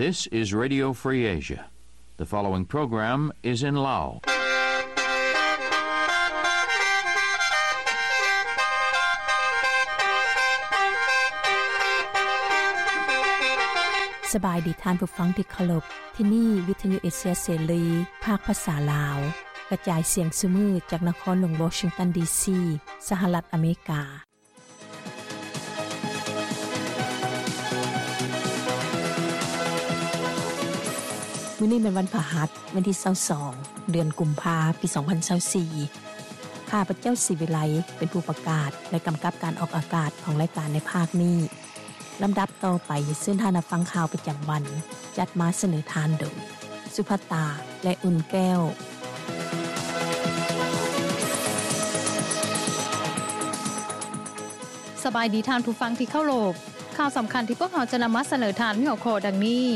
This is Radio Free Asia. The following program is in Lao. ສະບາຍດີທ່ານຜູ້ຟັງທີ່ເຄົາລົບ. ທີ່ນີ້ວິທະຍຸເອເຊຍເສລີ ພາກພາສາລາວ ກະຈາຍສຽງຊຸມື້ຈາກນະຄອນຫຼວງວໍຊິງຕັນ ດີຊີ ສະຫະລັດອາເມລິກາ. ມື້ນີ້ແມ່ນວັນພະຫັດ ວັນທີຊາວສອງ ເດືອນກຸມພາ ປີສອງພັນຊາວສີ່. ຂ້າພະເຈົ້າ ສີວິໄລ ເປັນຜູ້ປະກາດ ແລະ ກຳກັບການອອກອາກາດຂອງລາຍການໃນພາກນີ້. ລຳດັບຕໍ່ໄປ ເຊີນທ່ານຮັບຟັງຂ່າວປະຈຳວັນ ຈັດມາສະເໜີທ່ານໂດຍ ສຸພັດຕາ ແລະ ອຸ່ນແກ້ວ. ສະບາຍດີທ່ານຜູ້ຟັງທີ່ເຄົາລົບ. ຂ່າວສຳຄັນທີ່ພວກເຮົາຈະນຳມາສະເໜີທ່ານມີຫົວຂໍ້ດັ່ງນີ້: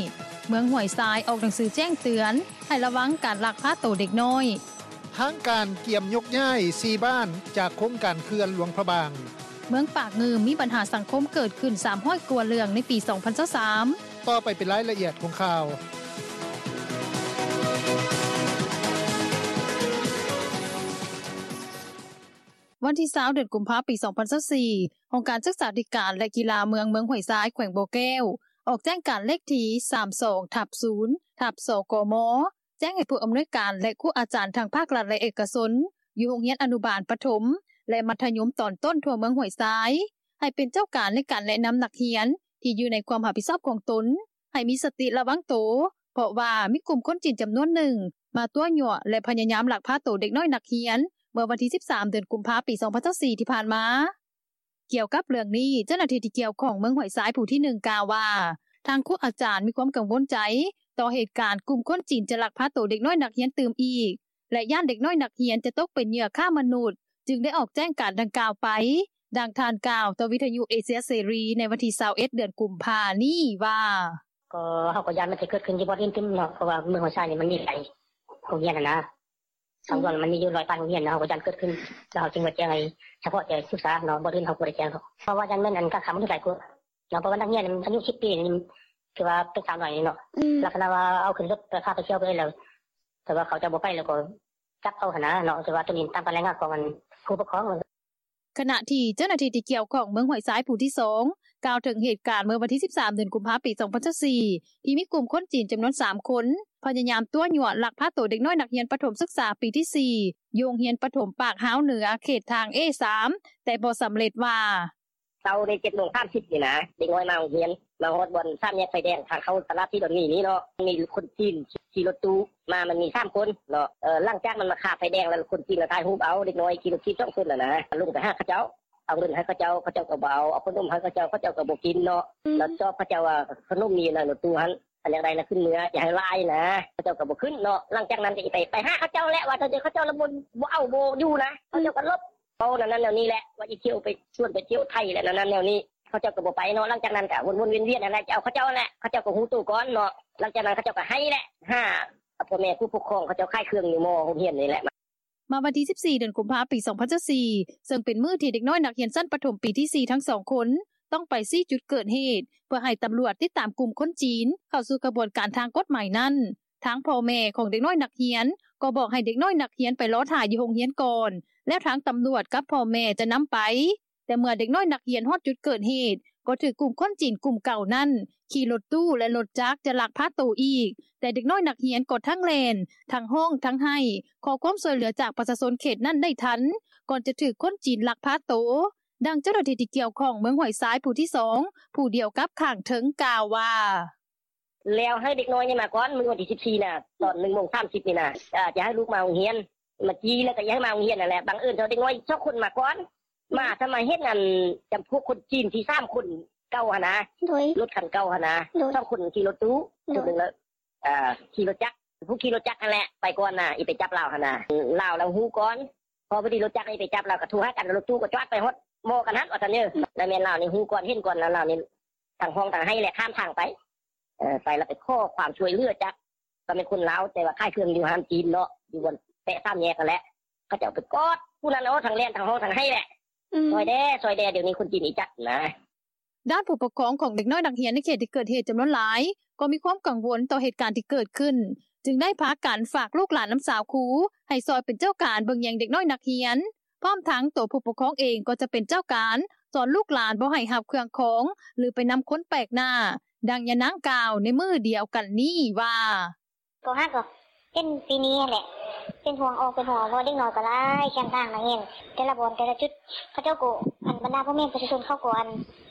ເມືອງຫ້ວຍຊາຍອອກໜັງສືແຈ້ງເຕືອນໃຫ້ລະວັງການລັກພາໂຕເດັກນ້ອຍ. ທາງການກຽມຍົກຍ້າຍສີ່ບ້ານຈາກໂຄງການເຂື່ອນຫຼວງພະບາງ. ເມືອງປາກງື່ມມີບັນຫາສັງຄົມເກີດຂຶ້ນສາມຮ້ອຍກວ່າເລື່ອງໃນປີສອງພັນຊາວສາມ. ຕໍ່ໄປເປັນລາຍລະອຽດຂອງຂ່າວ. ວັນທີຊາວ ເດືອນກຸມພາ ປີສອງພັນຊາວສີ່ ຫ້ອງການສຶກສາທິການ ແລະ ກິລາເມືອງ ເມືອງຫ້ວຍຊາຍ ແຂວງບໍ່ແກ້ວ ອອກແຈ້ງການເລກທີສາມສອງ ທັບ ສູນ ທັບ ສກມ ແຈ້ງໃຫ້ຜູ້ອຳນວຍການ ແລະ ຄູອາຈານທັງພາກລັດ ແລະ ເອກະຊົນ ຢູ່ໂຮງຮຽນອະນຸບານ, ປະຖົມ ແລະ ມັດທະຍົມຕອນຕົ້ນທົ່ວເມືອງຫ້ວຍຊາຍ ໃຫ້ເປັນເຈົ້າການໃນການແນະນຳນັກຮຽນທີ່ຢູ່ໃນຄວາມຮັບຜິດຊອບຂອງຕົນ ໃຫ້ມີສະຕິລະວັງໂຕ ເພາະວ່າມີກຸ່ມຄົນຈີນຈຳນວນໜຶ່ງມາຕົວະຍົວະ ແລະ ພະຍາຍາມລັກພາໂຕເດັກນ້ອຍນັກຮຽນ ເມື່ອວັນທີສິບສາມ ເດືອນກຸມພາ ປີສອງພັນຊາວສີ່ ທີ່ຜ່ານມາ. ກ່ຽວກັບເລື່ອງນີ້ ເຈົ້າໜ້າທີ່ທີ່ກ່ຽວຂ້ອງເມືອງຫ້ວຍຊາຍຜູ້ທີໜຶ່ງກ່າວວ່າ ທາງຄູອາຈານມີຄວາມກັງວົນໃຈຕໍ່ເຫດການກຸ່ມຄົນຈີນຈະລັກພາໂຕເດັກນ້ອຍນັກຮຽນຕື່ມອີກ ແລະ ຢ້ານເດັກນ້ອຍນັກຮຽນຈະຕົກເປັນເຫຍື່ອຄ້າມະນຸດ ຈຶ່ງໄດ້ອອກແຈ້ງການດັ່ງກ່າວໄປ. ດັ່ງທ່ານກ່າວຕໍ່ວິທະຍຸເອເຊຍເສລີໃນວັນທີຊາວເອັດ ເດືອນກຸມພານີ້ວ່າ: ກໍເຮົາກໍຢ້ານມັນຈະເກີດຂຶ້ນຢູ່ບ່ອນອື່ນຕື່ມເນາະ ເພາະວ່າເມືອງຫ້ວຍຊາຍນີ້ມັນມີຫຼາຍໂຮງຮຽນຫັ້ນນະ ທາງດ່ວນມັນມີຢູ່ຮ້ອຍປາຍໂຮງຮຽນເນາະ ເຮົາກໍຢ້ານເກີດຂຶ້ນ ແລ້ວເຮົາຈຶ່ງມາແຈ້ງໃຫ້ສະເພາະແຕ່ສຶກສາເນາະ ບ່ອນອື່ນເຮົາບໍ່ໄດ້ແຈ້ງດອກ ເພາະວ່າຢ້ານແມ່ນອັນການຄ້າມະນຸດຫຼາຍກວ່າເນາະ ເພາະວ່ານັກຮຽນອາຍຸສິບປີນີ້ ຖືວ່າເປັນສາວໜ້ອຍເນາະ ອືມ ລັກສະນະວ່າເອົາຂຶ້ນລົດໄປພາໄປທ່ຽວໄປແລ້ວ ແຕ່ວ່າເຂົາເຈົ້າບໍ່ໄປແລ້ວກໍຈັບເອົາຫັ້ນນະເນາະ ແຕ່ວ່າໂຕນີ້ຕາມການລາຍງານຂອງອັນຜູ້ປົກຄອງ. ຂະນະທີ່ເຈົ້າໜ້າທີ່ທີ່ກ່ຽວຂ້ອງເມືອງຫ້ວຍຊາຍຜູ້ທີສອງ ກ່າວເຖິງເຫດການເມື່ອວັນທີສິບສາມ ເດືອນກຸມພາ ປີສອງພັນຊາວສີ່ ທີ່ມີກຸ່ມຄົນຈີນຈຳນວນສາມຄົນ ພະຍາຍາມຕົວະຍົວະລັກພາໂຕເດັກນ້ອຍນັກຮຽນປະຖົມສຶກສາປີທີສີ່ ຢູ່ໂຮງຮຽນປະຖົມປາກຮາວເໜືອ ເຂດທາງເອສາມ ແຕ່ບໍ່ສຳເລັດວ່າ: ເຊົ້າໃນເຈັດໂມງສາມສິບນີ້ນະ ເດັກນ້ອຍມາໂຮງຮຽນ ມາຮອດບ່ອນສາມແຍກໄຟແດງ ທາງເຂົ້າຕະຫຼາດທີ່ດອນໝີນີ້ເນາະ ມີຄົນຈີນຂີ່ລົດຕູ້ມາ ມັນມີສາມຄົນເນາະ ເອີ ຫຼັງຈາກມັນມາຄາໄຟແດງແລ້ວ ຄົນຈີນລະຖ່າຍຮູບເອົາເດັກນ້ອຍຂີ່ລົດຖີບສອງຄົນຫັ້ນນະ ລົງໄປຫາເຂົາເຈົ້າ ເອົາເງິນໃຫ້ເຂົາເຈົ້າ ເຂົາເຈົ້າກໍບໍ່ເອົາ ເອົາຂະໜົມໃຫ້ເຂົາເຈົ້າ ເຂົາເຈົ້າກໍບໍ່ກິນເນາະ ອືມ ແລ້ວຈອບເຂົາເຈົ້າວ່າຂະໜົມມີຢູ່ໃນລົດຕູ້ຫັ້ນ ອັນຢາກໄດ້ນະຂຶ້ນເມືອ ຢ່າໃຫ້ຫຼາຍນະ ເຂົາເຈົ້າກໍບໍ່ຂຶ້ນເນາະ ຫຼັງຈາກນັ້ນກໍໄປ ໄປຫາເຂົາເຈົ້າແຫຼະ ວ່າແຕ່ເຂົາເຈົ້າລະບໍ່ ບໍ່ເອົາບໍ່ຢູ່ນະ ເຂົາເຈົ້າກໍຫຼົບ ເວົ້າແນວນັ້ນແນວນີ້ແຫຼະ ວ່າຊິທ່ຽວໄປຊວນໄປທ່ຽວໄທແຫຼະ ແນວນັ້ນແນວນີ້ ເຂົາເຈົ້າກໍບໍ່ໄປເນາະ ຫຼັງຈາກນັ້ນກໍວົນໆວຽນໆຫັ້ນແຫຼະ ຈະເອົາເຂົາເຈົ້າຫັ້ນແຫຼະ ເຂົາເຈົ້າກໍຮູ້ໂຕກ່ອນເນາະ ຫຼັງຈາກນັ້ນເຂົາເຈົ້າກໍໄຫ້ແຫຼະ ຫາພໍ່ແມ່ຜູ້ປົກຄອງ ເຂົາເຈົ້າຂາຍເຄື່ອງຢູ່ມໍໂຮງຮຽນນີ້ແຫຼະ. ມາວັນທີສິບສີ່ ເດືອນກຸມພາ ປີສອງພັນຊາວສີ່ ເຊິ່ງເປັນມື້ທີ່ເດັກນ້ອຍນັກຮຽນຊັ້ນປະຖົມປີທີສີ່ທັງສອງຄົນ ຕ້ອງໄປຊີ້ຈຸດເກີດເຫດ ເພື່ອໃຫ້ຕຳຫຼວດຕິດຕາມກຸ່ມຄົນຈີນເຂົ້າສູ່ຂະບວນການທາງກົດໝາຍນັ້ນ ທາງພໍ່ແມ່ຂອງເດັກນ້ອຍນັກຮຽນກໍບອກໃຫ້ເດັກນ້ອຍນັກຮຽນໄປລໍຖ້າຢູ່ໂຮງຮຽນກ່ອນ ແລ້ວທາງຕຳຫຼວດກັບພໍ່ແມ່ຈະນຳໄປ. ແຕ່ເມື່ອເດັກນ້ອຍນັກຮຽນຮອດຈຸດເກີດເຫດ ກໍຖືກກຸ່ມຄົນຈີນກຸ່ມເກົ່ານັ້ນຂີ່ລົດຕູ້ ແລະ ລົດຈັກຈະລັກພາໂຕອີກ, ແຕ່ເດັກນ້ອຍນັກຮຽນກໍທັງແລ່ນ, ທັງຮ້ອງ, ທັງໄຫ້ ຂໍຄວາມຊ່ວຍເຫຼືອຈາກປະຊາຊົນເຂດນັ້ນໄດ້ທັນ ກ່ອນຈະຖືກຄົນຈີນລັກພາໂຕ. ດັ່ງເຈົ້າໜ້າທີ່ທີ່ກ່ຽວຂ້ອງເມືອງຫ້ວຍຊາຍຜູ້ທີສອງ ຜູ້ດຽວກັບຂ້າງເທິງກ່າວວ່າ: ແລ້ວໃຫ້ເດັກນ້ອຍນີ້ມາກ່ອນ ມື້ວັນທີສິບສີ່ນະ ຕອນໜຶ່ງໂມງສາມສິບນີ້ນະ ຈະໃຫ້ລູກມາໂຮງຮຽນ ມາຈີ່ແລ້ວກໍຢາກໃຫ້ມາໂຮງຮຽນຫັ້ນແຫຼະ ບັງເອີນເຈົ້າເດັກນ້ອຍສອງຄົນມາກ່ອນ ມາຊະມາເຫັນອັນຈຳພວກຄົນຈີນທີ່ສາມຄົນເກົ່າຫັ້ນນະ ໂດຍ ລົດຄັນເກົ່າຫັ້ນນະ ໂດຍ ສອງຄົນຂີ່ລົດຕູ້ ໂດຍ ຄົນໜຶ່ງລະ ອ່າ ຂີ່ລົດຈັກ ຜູ້ຂີ່ລົດຈັກຫັ້ນແຫຼະ ໄປກ່ອນນະ ອີ່ໄປຈັບລາວຫັ້ນນະ ລາວລະຮູ້ກ່ອນ ພໍພໍດີລົດຈັກນີ້ໄປຈັບລາວ ກໍໂທຫາກັນ ລົດຕູ້ກໍຈອດໄປຮອດໝໍ້ກັນຫັ້ນວ່າຊັ້ນເດີ ແລ້ວແມ່ນລາວນີ້ຮູ້ກ່ອນເຫັນກ່ອນ ແລ້ວລາວນີ້ທັງຮ້ອງທັງໄຫ້ແຫຼະ ຂ້າມທາງໄປ ເອີ ໄປແລ້ວໄປຂໍຄວາມຊ່ວຍເຫຼືອຈາກ ກໍແມ່ນຄົນລາວ ແຕ່ວ່າຂາຍເຄື່ອງຢູ່ຮ້ານຈີນເນາະ ຢູ່ບ່ອນແປະສາມແຍກຫັ້ນແຫຼະ ເຂົາເຈົ້າໄປກອດຜູ້ນັ້ນ ໂອ້ ທັງແລ່ນທັງຮ້ອງທັງໄຫ້ແຫຼະ ອືມ ຊ່ອຍແດ່ ຊ່ອຍແດ່ ດຽວນີ້ຄົນຈີນອີຈັກນະ. ດ້ານຜູ້ປົກຄອງຂອງເດັກນ້ອຍນັກຮຽນ ໃນເຂດທີ່ເກີດເຫດຈຳນວນຫຼາຍ ກໍມີຄວາມກັງວົນຕໍ່ເຫດການທີ່ເກີດຂຶ້ນ ຈຶ່ງໄດ້ພາກັນຝາກລູກຫຼານນຳຊາວຄູ ໃຫ້ຊ່ອຍເປັນເຈົ້າການເບິ່ງແຍງເດັກນ້ອຍນັກຮຽນ ພ້ອມທັງໂຕຜູ້ປົກຄອງເອງ ກໍຈະເປັນເຈົ້າການສອນລູກຫຼານບໍ່ໃຫ້ຮັບເຄື່ອງຂອງ ຫຼື ໄປນຳຄົນແປກໜ້າ. ດັ່ງຍານາງກ່າວໃນມື້ດຽວກັນນີ້ວ່າ: “ກໍຫາກໍເປັນປີນີ້ຫັ້ນແຫຼະ ເປັນຫ່ວງອອກເປັນຫ່ວງ ເພາະວ່າເດັກນ້ອຍກໍຫຼາຍ ແຄມທາງນັກຮຽນ ແຕ່ລະບ່ອນແຕ່ລະຈຸດ ເຂົາເຈົ້າກໍ ອັນບັນດາພໍ່ແມ່ປະຊາຊົນເຂົາກໍ ອັ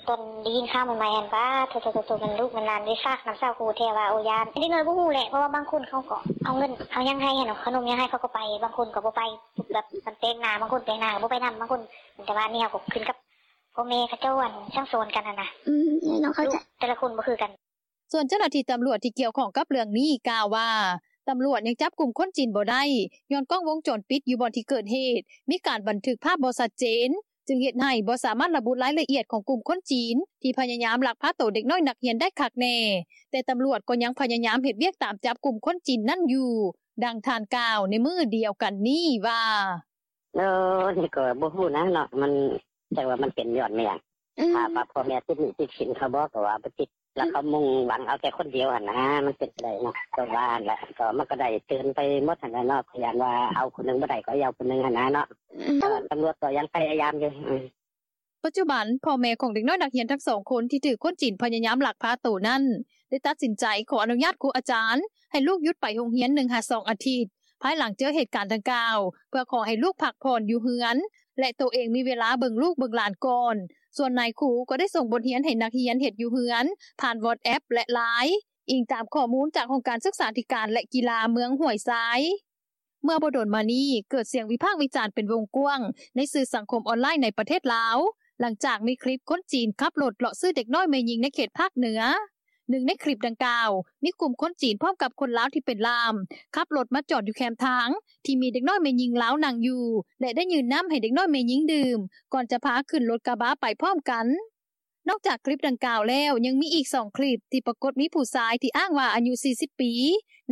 ນຕອນໄດ້ຍິນຂ່າວໃໝ່ໆຫັ້ນ ປາໂທ້ໆໆ ແມ່ນລູກແມ່ນຫຼານໄດ້ຝາກນຳຊາວຄູແທ້ວ່າ ໂອ້ ຢ້ານ ເດັກນ້ອຍບໍ່ຮູ້ແຫຼະ ເພາະວ່າບາງຄົນເຂົາກໍເອົາເງິນເອົາຫຍັງໃຫ້ຫັ້ນ ເອົາຂະໜົມຫຍັງໃຫ້ເຂົາກໍໄປ ບາງຄົນກໍບໍ່ໄປ ແບບມັນແປກໜ້າ ບາງຄົນແປກໜ້າກໍບໍ່ໄປນຳ ບາງຄົນ ແຕ່ວ່າອັນນີ້ເຮົາກໍຂຶ້ນກັບພໍ່ແມ່ເຂົາເຈົ້າ ອັນສັ່ງສອນກັນຫັ້ນນະ ອືມ ເອີ ເນາະ ເຂົ້າໃຈ ລູກແຕ່ລະຄົນບໍ່ຄືກັນ.” ສ່ວນເຈົ້າໜ້າທີ່ຕຳຫຼວດທີ່ກ່ຽວຂ້ອງກັບເລື່ອງນີ້ກ່າວວ່າ ຕຳຫຼວດຍັງຈັບກຸ່ມຄົນຈີນບໍ່ໄດ້ ຍ້ອນກ້ອງວົງຈອນປິດຢູ່ບ່ອນທີ່ເກີດເຫດ ມີການບັນທຶກພາບບໍ່ຊັດເຈນ ຈຶ່ງເຮັດໃຫ້ບໍ່ສາມາດລະບຸລາຍລະອຽດຂອງກຸ່ມຄົນຈີນ ທີ່ພະຍາຍາມລັກພາໂຕເດັກນ້ອຍນັກຮຽນໄດ້ຄັກແນ່, ແຕ່ຕຳຫຼວດກໍຍັງພະຍາຍາມເຮັດວຽກຕາມຈັບກຸ່ມຄົນຈີນນັ້ນຢູ່. ດັ່ງທ່ານກ່າວໃນມື້ດຽວກັນນີ້ວ່າ: “ໂອ້ ນີ້ກໍບໍ່ຮູ້ນະເນາະ ມັນ ຈັກວ່າມັນເປັນຍ້ອນແມ່ນຫຍັງ ອືມ ຖ້າວ່າພໍ່ແມ່ຕິດໜີ້ຕິດສິນເຂົາບໍ ກໍວ່າບໍ່ຕິດ ແລ້ວເຂົາມຸ່ງຫວັງເອົາແຕ່ຄົນດຽວຫັ້ນນະ ມັນເປັນໄປໄດ້ເນາະ ກໍວ່າຫັ້ນແຫຼະ ກໍມັນກໍໄດ້ເຕືອນໄປໝົດຫັ້ນແຫຼະເນາະ ກໍຢ້ານວ່າເອົາຜູ້ໜຶ່ງບໍ່ໄດ້ ກໍເອົາຜູ້ໜຶ່ງຫັ້ນນະເນາະ ອືມ ກໍຕຳຫຼວດກໍຍັງພະຍາຍາມຢູ່.” ປັດຈຸບັນ ພໍ່ແມ່ຂອງເດັກນ້ອຍນັກຮຽນທັງສອງຄົນ ທີ່ຖືກຄົນຈີນພະຍາຍາມລັກພາໂຕນັ້ນ ໄດ້ຕັດສິນໃຈຂໍອະນຸຍາດຄູອາຈານ ໃຫ້ລູກຢຸດໄປໂຮງຮຽນໜຶ່ງຫາສອງອາທິດ ພາຍຫຼັງເຈີເຫດການດັ່ງກ່າວ ເພື່ອຂໍໃຫ້ລູກພັກຜ່ອນຢູ່ເຮືອນ ແລະ ໂຕເອງມີເວລາເບິ່ງລູກເບິ່ງຫຼານກ່ອນ. ສ່ວນນາຍຄູກໍໄດ້ສົ່ງບົດຮຽນໃຫ້ນັກຮຽນເຮັດຢູ່ເຮືອນ ຜ່ານ WhatsApp ແລະ LINE ອີງຕາມຂໍ້ມູນຈາກຫ້ອງການສຶກສາທິການ ແລະ ກິລາເມືອງຫ້ວຍຊາຍ. ເມື່ອບໍ່ດົນມານີ້ ເກີດສຽງວິພາກວິຈານເປັນວົງກວ້າງໃນສື່ສັງຄົມອອນລາຍໃນປະເທດລາວ ຫຼັງຈາກມີຄລິບຄົນຈີນຂັບລົດເລາະຊື້ເດັກນ້ອຍແມ່ຍິງໃນເຂດພາກເໜືອ. ໜຶ່ງໃນຄລິບດັ່ງກ່າວ ມີກຸ່ມຄົນຈີນພ້ອມກັບຄົນລາວທີ່ເປັນລ່າມ ຂັບລົດມາຈອດຢູ່ແຄມທາງ ທີ່ມີເດັກນ້ອຍແມ່ຍິງລາວນັ່ງຢູ່ ແລະ ໄດ້ຍື່ນນ້ຳໃຫ້ເດັກນ້ອຍແມ່ຍິງດື່ມ ກ່ອນຈະພາຂຶ້ນລົດກະບະໄປພ້ອມກັນ. ນອກຈາກຄລິບດັ່ງກ່າວແລ້ວ ຍັງມີອີກສອງຄລິບທີ່ປາກົດມີຜູ້ຊາຍທີ່ອ້າງວ່າອາຍຸສີ່ສິບປີ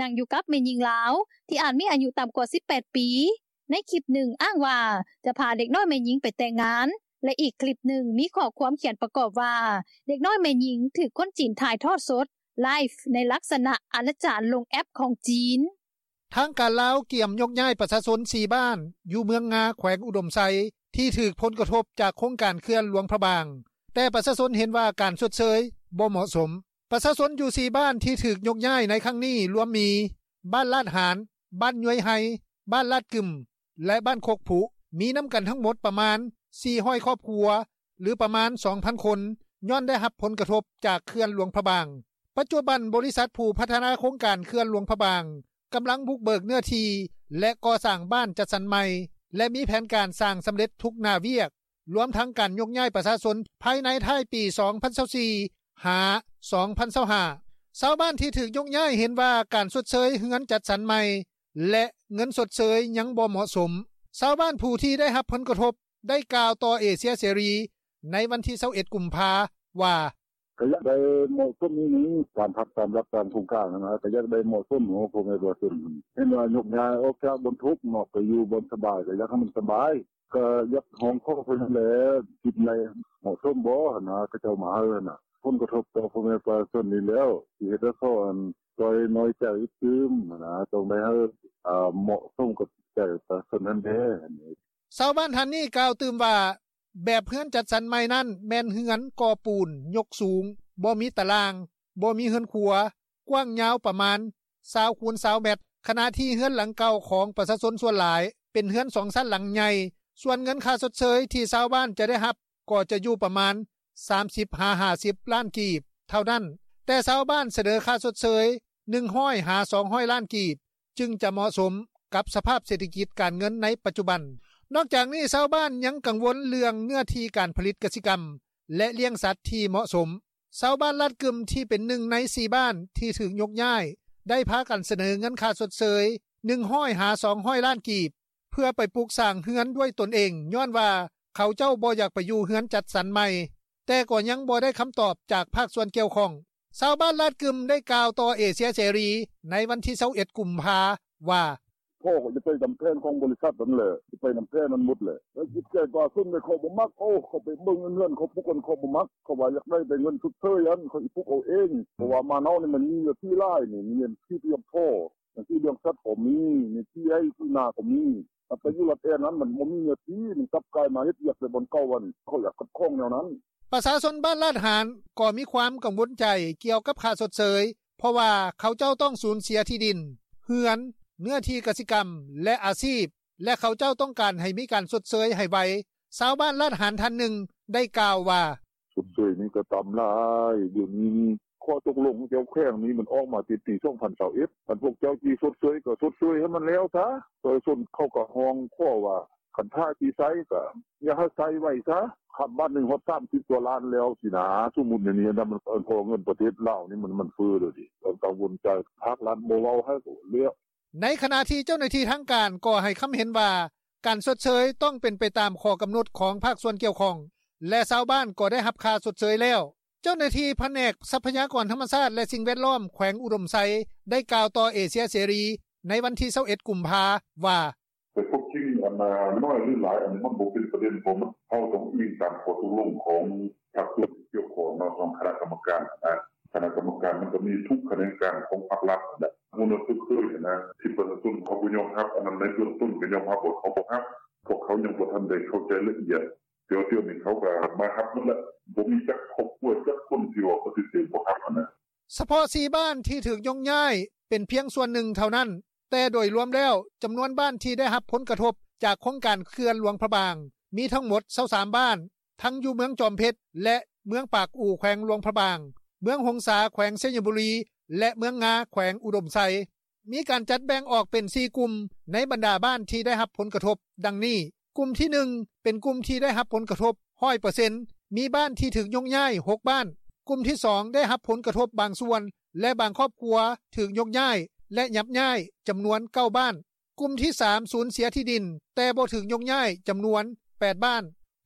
ນັ່ງຢູ່ກັບແມ່ຍິງລາວ ທີ່ອາດມີອາຍຸຕ່ຳກວ່າສິບແປດປີ. ໃນຄລິບໜຶ່ງອ້າງວ່າຈະພາເດັກນ້ອຍແມ່ຍິງໄປແຕ່ງງານ ແລະ ອີກຄລິບໜຶ່ງມີຂໍ້ຄວາມຂຽນປະກອບວ່າ ເດັກນ້ອຍແມ່ຍິງຖືກຄົນຈີນຖ່າຍທອດສົດ ໄລຟ໌ ໃນລັກສະນະອະນາຈານລົງແອັບຂອງຈີນ. ທາງການລາວກຽມຍົກຍ້າຍປະຊາຊົນສີ່ບ້ານ ຢູ່ເມືອງງາ ແຂວງອຸດົມໄຊ ທີ່ຖືກຜົນກະທົບຈາກໂຄງການເຂື່ອນຫຼວງພະບາງ, ແຕ່ປະຊາຊົນເຫັນວ່າການຊົດເຊີຍບໍ່ເໝາະສົມ. ປະຊາຊົນຢູ່ສີ່ບ້ານທີ່ຖືກຍົກຍ້າຍໃນຄັ້ງນີ້ລວມມີ ບ້ານລາດຫານ, ບ້ານຍວຍໄຮ, ບ້ານລາດກຶມ ແລະ ບ້ານຄົກຜຸ, ມີນຳກັນທັງໝົດປະມານສີ່ຮ້ອຍຄອບຄົວ ຫຼື ປະມານສອງພັນຄົນ ຍ້ອນໄດ້ຮັບຜົນກະທົບຈາກເຂື່ອນຫຼວງພະບາງ. ປັດຈຸບັນ ບໍລິສັດຜູ້ພັດທະນາໂຄງການເຂື່ອນຫຼວງພະບາງ ກຳລັງບຸກເບີກເນື້ອທີ່ ແລະ ກໍ່ສ້າງບ້ານຈັດສັນໃໝ່ ແລະ ມີແຜນການສ້າງສຳເລັດທຸກໜ້າວຽກ, ລວມທັງການຍົກຍ້າຍປະຊາຊົນພາຍໃນທ້າຍປີສອງພັນຊາວສີ່ ຫາ ສອງພັນຊາວຫ້າ. ຊາວບ້ານທີ່ຖືກຍົກຍ້າຍເຫັນວ່າການຊົດເຊີຍເຮືອນຈັດສັນໃໝ່ ແລະ ເງິນຊົດເຊີຍຍັງບໍ່ເໝາະສົມ. ຊາວບ້ານຜູ້ທີ່ໄດ້ຮັບຜົນກະທົບ ໄດ້ກ່າວຕໍ່ເອເຊຍເສລີໃນວັນທີຊາວເອັດ ກຸມພາ ວ່າ: “ກໍຢາກໄດ້ເໝາະສົມອີ່ຫຍັງ ຕາມພັກຕາມຫຼັກຕາມໂຄງການຫັ້ນນະ ກໍຢາກໄດ້ເໝາະສົມເນາະ ພໍ່ແມ່ປະຊາຊົນ ເຫັນວ່າຍົກຍ້າຍອອກຈາກບ່ອນທຸກເນາະ ໄປຢູ່ບ່ອນສະບາຍ ກໍຢາກໃຫ້ມັນສະບາຍ ກໍຢາກຮ້ອງຂໍເພິ່ນຫັ້ນແຫຼະ ຄິດໃນເໝາະສົມບໍ່ຫັ້ນນະ ເຂົາເຈົ້າມາໃຫ້ຫັ້ນນະ ຜົນກະທົບຕໍ່ພໍ່ແມ່ປະຊາຊົນນີ້ແລ້ວ ຊິເຮັດໃຫ້ເຂົາອັນ ຈ່ອຍນ້ອຍໃຈຕື່ມຫັ້ນນະ ຕ້ອງໄດ້ໃຫ້ ເໝາະສົມກັບໃຈປະຊາຊົນຫັ້ນແດ່.” ຊາວບ້ານທ່ານນີ້ກ່າວຕື່ມວ່າ ແບບເຮືອນຈັດສັນໃໝ່ນັ້ນແມ່ນເຮືອນກໍ່ປູນຍົກສູງ, ບໍ່ມີຕາລ່າງ, ບໍ່ມີເຮືອນຄົວ, ກວ້າງຍາວປະມານຊາວຄູນຊາວແມັດ, ຂະນະທີ່ເຮືອນຫຼັງເກົ່າຂອງປະຊາຊົນສ່ວນຫຼາຍເປັນເຮືອນສອງຊັ້ນຫຼັງໃຫຍ່, ສ່ວນເງິນຄ່າຊົດເຊີຍທີ່ຊາວບ້ານຈະໄດ້ຮັບກໍຈະຢູ່ປະມານສາມສິບຫາຫ້າສິບລ້ານກີບເທົ່ານັ້ນ, ແຕ່ຊາວບ້ານສະເໜີຄ່າຊົດເຊີຍໜຶ່ງຮ້ອຍຫາສອງຮ້ອຍລ້ານກີບ ຈຶ່ງຈະເໝາະສົມກັບສະພາບເສດຖະກິດການເງິນໃນປັດຈຸບັນ. ນອກຈາກນີ້ ຊາວບ້ານຍັງກັງວົນເລື່ອງເນື້ອທີ່ການຜະລິດກະສິກຳ ແລະ ລ້ຽງສັດທີ່ເໝາະສົມ. ຊາວບ້ານລາດກຶມທີ່ເປັນໜຶ່ງໃນສີ່ບ້ານທີ່ຖືກຍົກຍ້າຍ ໄດ້ພາກັນສະເໜີເງິນຄ່າຊົດເຊີຍໜຶ່ງຮ້ອຍຫາສອງຮ້ອຍລ້ານກີບ ເພື່ອໄປປຸກສ້າງເຮືອນດ້ວຍຕົນເອງ ຍ້ອນວ່າເຂົາເຈົ້າບໍ່ຢາກໄປຢູ່ເຮືອນຈັດສັນໃໝ່, ແຕ່ກໍຍັງບໍ່ໄດ້ຄຳຕອບຈາກພາກສ່ວນກ່ຽວຂ້ອງ. ຊາວບ້ານລາດກຶມໄດ້ກ່າວຕໍ່ເອເຊຍເສລີໃນວັນທີຊາວເອັດ ກຸມພາ ວ່າ: ໂອ້ ຂ້ອຍຈະໄປຕາມແຜນຂອງບໍລິສັດນັ້ນແຫຼະ ຊິໄປນຳແຜນນັ້ນໝົດແຫຼະ ແລ້ວຈິດໃຈປະຊາຊົນເຂົາບໍ່ມັກ ໂອ້ ເຂົາໄປເບິ່ງເງິນເຂົາປຸກຫັ້ນ ເຂົາບໍ່ມັກ ເຂົາວ່າຢາກໄດ້ແຕ່ເງິນຊົດເຊີຍຫັ້ນ ເຂົາຊິປຸກເອົາເອງ ເພາະວ່າບ້ານເຮົານີ້ມັນມີເນື້ອທີ່ຫຼາຍນີ້ ມີເນື້ອທີ່ພຽງພໍ ຈັ່ງຊີ້ເລື່ອງສັດກໍມີ ມີທີ່ໄຮ່ທີ່ນາກໍມີ ແຕ່ໄປຢູ່ລັດແອນຫັ້ນມັນບໍ່ມີເນື້ອທີ່ ມັນກັບກາຍມາເຮັດວຽກແຕ່ບ່ອນເກົ່າຫັ້ນ ເຂົາຢາກຂັດຂ້ອງແນວນັ້ນ.” ປະຊາຊົນບ້ານລາດຫານ ກໍມີຄວາມກັງວົນໃຈກ່ຽວກັບຄ່າຊົດເຊີຍ ເພາະວ່າເຂົາເຈົ້າຕ້ອງສູນເສຍທີ່ດິນ, ເຮືອນ, ເນື້ອທີ່ກະສິກຳ ແລະ ອາຊີບ ແລະ ເຂົາເຈົ້າຕ້ອງການໃຫ້ມີການຊົດເຊີຍໃຫ້ໄວ. ຊາວບ້ານລາດຫານທ່ານໜຶ່ງ ໄດ້ກ່າວວ່າ: “ຊົດເຊີຍນີ້ກໍຕ່ຳຫຼາຍ ດຽວນີ້ນີ້ ຂໍ້ຕົກລົງແຖວແຂວງນີ້ມັນອອກມາແຕ່ປີສອງພັນຊາວເອັດ ຄັນພວກເຈົ້າຊິຊົດເຊີຍກໍຊົດເຊີຍໃຫ້ມັນແລ້ວຊະ ປະຊາຊົນເຂົາກໍຮ້ອງຂໍວ່າ ຄັນຖ້າຊິໃຊ້ກໍຢ່າໃຫ້ໃຊ້ໄວຊະ ຄັນບາດໜຶ່ງຮອດສາມສິບກວ່າລ້ານແລ້ວຊີ້ນາ ສົມມຸດແນວນີ້ນະ ເພາະວ່າເງິນປະເທດລາວນີ້ມັນເຟີ້ແລ້ວເດ ກໍກັງວົນໃຈ ພາກລັດບໍ່ເວົ້າໃຫ້ກໍແລ້ວ.” ໃນຂະນະທີ່ເຈົ້າໜ້າທີ່ທາງການກໍໃຫ້ຄຳເຫັນວ່າ ການຊົດເຊີຍຕ້ອງເປັນໄປຕາມຂໍ້ກຳນົດຂອງພາກສ່ວນກ່ຽວຂ້ອງ ແລະ ຊາວບ້ານກໍໄດ້ຮັບຄ່າຊົດເຊີຍແລ້ວ. ເຈົ້າໜ້າທີ່ພະແນກຊັບພະຍາກອນທຳມະຊາດ ແລະ ສິ່ງແວດລ້ອມ ແຂວງອຸດົມໄຊ ໄດ້ກ່າວຕໍ່ເອເຊຍເສລີ ໃນວັນທີຊາວເອັດ ກຸມພາ ວ່າ: “ແຕ່ຄວາມຈິງ ອັນໜ້ອຍ ຫຼື ຫຼາຍ ອັນນີ້ມັນບໍ່ເປັນປະເດັນ ເພາະວ່າເຮົາຕ້ອງອີງຕາມຂໍ້ຕົກລົງຂອງພາກສ່ວນທີ່ກ່ຽວຂ້ອງເນາະ ຂອງຄະນະກຳມະການຫັ້ນນະ ຄະນະກຳມະການມັນກໍມີທຸກຂະແໜງການຂອງພາກລັດຫັ້ນແຫຼະ ຮູ້ແນວຊົດເຊີຍຫັ້ນນະ ທີ່ປະຊາຊົນເຂົາບໍ່ຍອມຮັບ ອັນນັ້ນໃນເບື້ອງຕົ້ນກໍຍອມຮັບວ່າເຂົາບໍ່ຮັບ ພວກເຂົາຍັງບໍ່ທັນໄດ້ເຂົ້າໃຈລະອຽດ ແຕ່ວ່າດຽວນີ້ເຂົາກໍມາຮັບໝົດແລ້ວ ບໍ່ມີຈັກຄອບຄົວຈັກຄົນທີ່ວ່າປະຕິເສດບໍ່ຮັບຫັ້ນນະ.” ສະເພາະ ສີ່ ບ້ານທີ່ຖືກຍົກຍ້າຍ ເປັນພຽງສ່ວນໜຶ່ງເທົ່ານັ້ນ ແຕ່ໂດຍລວມແລ້ວ ຈຳນວນບ້ານທີ່ໄດ້ຮັບຜົນກະທົບຈາກໂຄງການເຂື່ອນຫຼວງພະບາງ ມີທັງໝົດ ຊາວສາມ ບ້ານ ທັງຢູ່ເມືອງຈອມເພັດ ແລະ ເມືອງປາກອູ່ ແຂວງຫຼວງພະບາງ, ເມືອງຫົງສາ ແຂວງໄຊຍະບູລີ ແລະ ເມືອງງາ ແຂວງອຸດົມໄຊ. ມີການຈັດແບ່ງອອກເປັນ ສີ່ ກຸ່ມ ໃນບັນດາບ້ານທີ່ໄດ້ຮັບຜົນກະທົບ ດັ່ງນີ້: ກຸ່ມທີ ໜຶ່ງ ເປັນກຸ່ມທີ່ໄດ້ຮັບຜົນກະທົບ ຮ້ອຍເປີເຊັນ ມີບ້ານທີ່ຖືກຍົກຍ້າຍ ຫົກ ບ້ານ, ກຸ່ມທີ ສອງ ໄດ້ຮັບຜົນກະທົບບາງສ່ວນ ແລະ ບາງຄອບຄົວຖືກຍົກຍ້າຍ ແລະ ຍັບຍ້າຍ ຈຳນວນ ເກົ້າ ບ້ານ, ກຸ່ມທີ ສາມ ສູນເສຍທີ່ດິນ ແຕ່ບໍ່ຖືກຍົກຍ້າຍ ຈຳນວນ ແປດ ບ້ານ,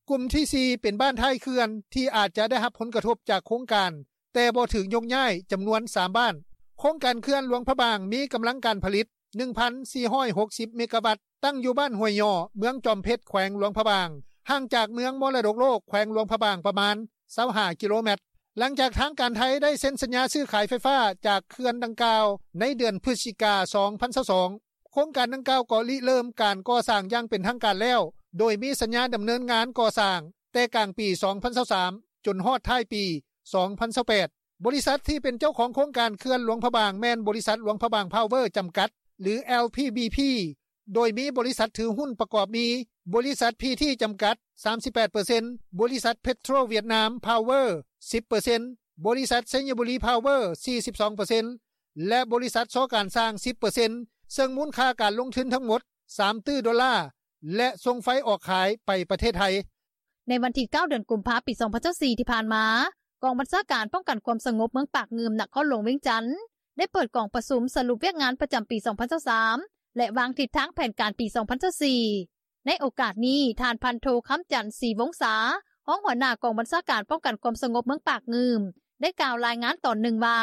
ກຸ່ມທີ ສີ່ ເປັນບ້ານທ້າຍເຂື່ອນ ທີ່ອາດຈະໄດ້ຮັບຜົນກະທົບຈາກໂຄງການ ແຕ່ບໍ່ຖືກຍົກຍ້າຍ ຈຳນວນ ສາມ ບ້ານ. ໂຄງການເຂື່ອນຫຼວງພະບາງ ມີກຳລັງການຜະລິດ ໜຶ່ງພັນສີ່ຮ້ອຍຫົກສິບ ເມກາວັດ ຕັ້ງຢູ່ບ້ານຫ້ວຍຫຍໍ້ ເມືອງຈອມເພັດ ແຂວງຫຼວງພະບາງ, ຫ່າງຈາກເມືອງມໍລະດົກໂລກ ແຂວງຫຼວງພະບາງ ປະມານ ຊາວຫ້າ ກິໂລແມັດ. ຫຼັງຈາກທາງການໄທໄດ້ເຊັນສັນຍາຊື້ຂາຍໄຟຟ້າຈາກເຂື່ອນດັ່ງກ່າວ ໃນເດືອນພຶສຈິກາ ສອງພັນຊາວສອງ ໂຄງການດັ່ງກ່າວກໍລິເລີ່ມການກໍ່ສ້າງຢ່າງເປັນທາງການແລ້ວ ໂດຍມີສັນຍາດຳເນີນງານກໍ່ສ້າງແຕ່ກາງປີ ສອງພັນຊາວສາມ ຈົນຮອດທ້າຍປີ ສອງພັນຊາວແປດ. ບໍລິສັດທີ່ເປັນເຈົ້າຂອງໂຄງການເຂື່ອນຫຼວງພະບາງ ແມ່ນບໍລິສັດຫຼວງພະບາງພາວເວີ ຈຳກັດ ຫຼື ແອລ ພີ ບີ ພີ ໂດຍມີບໍລິສັດຖືຫຸ້ນປະກອບມີ ບໍລິສັດ ພີ ທີ ຈຳກັດ ສາມສິບແປດເປີເຊັນ, ບໍລິສັດ ເພັດໂທຣ ຫວຽດນາມ ພາວເວີ ສິບເປີເຊັນ, ບໍລິສັດ ໄຊຍະບູລີ ພາວເວີ ສີ່ສິບສອງເປີເຊັນ ແລະ ບໍລິສັດ ຊ ການຊ່າງ ສິບເປີເຊັນ ເຊິ່ງມູນຄ່າການລົງທຶນທັງໝົດ ສາມຕື້ໂດລາ ແລະ ສົ່ງໄຟອອກຂາຍໄປປະເທດໄທ. ໃນວັນທີ ເກົ້າ ເດືອນກຸມພາ ປີ ສອງພັນຊາວສີ່ ທີ່ຜ່ານມາ, ກອງບັນຊາການປ້ອງກັນຄວາມສະຫງົບເມືອງປາກງື່ມ ນະຄອນຫຼວງວຽງຈັນ ໄດ້ເປີດກອງປະຊຸມສະຫຼຸບວຽກງານປະຈຳປີ ສອງພັນຊາວສາມ ແລະ ວາງທິດທາງແຜນການປີ ສອງພັນຊາວສີ່. ໃນໂອກາດນີ້, ທ່ານ ພັນໂທ ຄຳຈັນ ສີວົງສາ ຮອງຫົວໜ້າກອງບັນຊາການປ້ອງກັນຄວາມສະຫງົບເມືອງປາກງື່ມ ໄດ້ກ່າວລາຍງານຕອນໜຶ່ງວ່າ,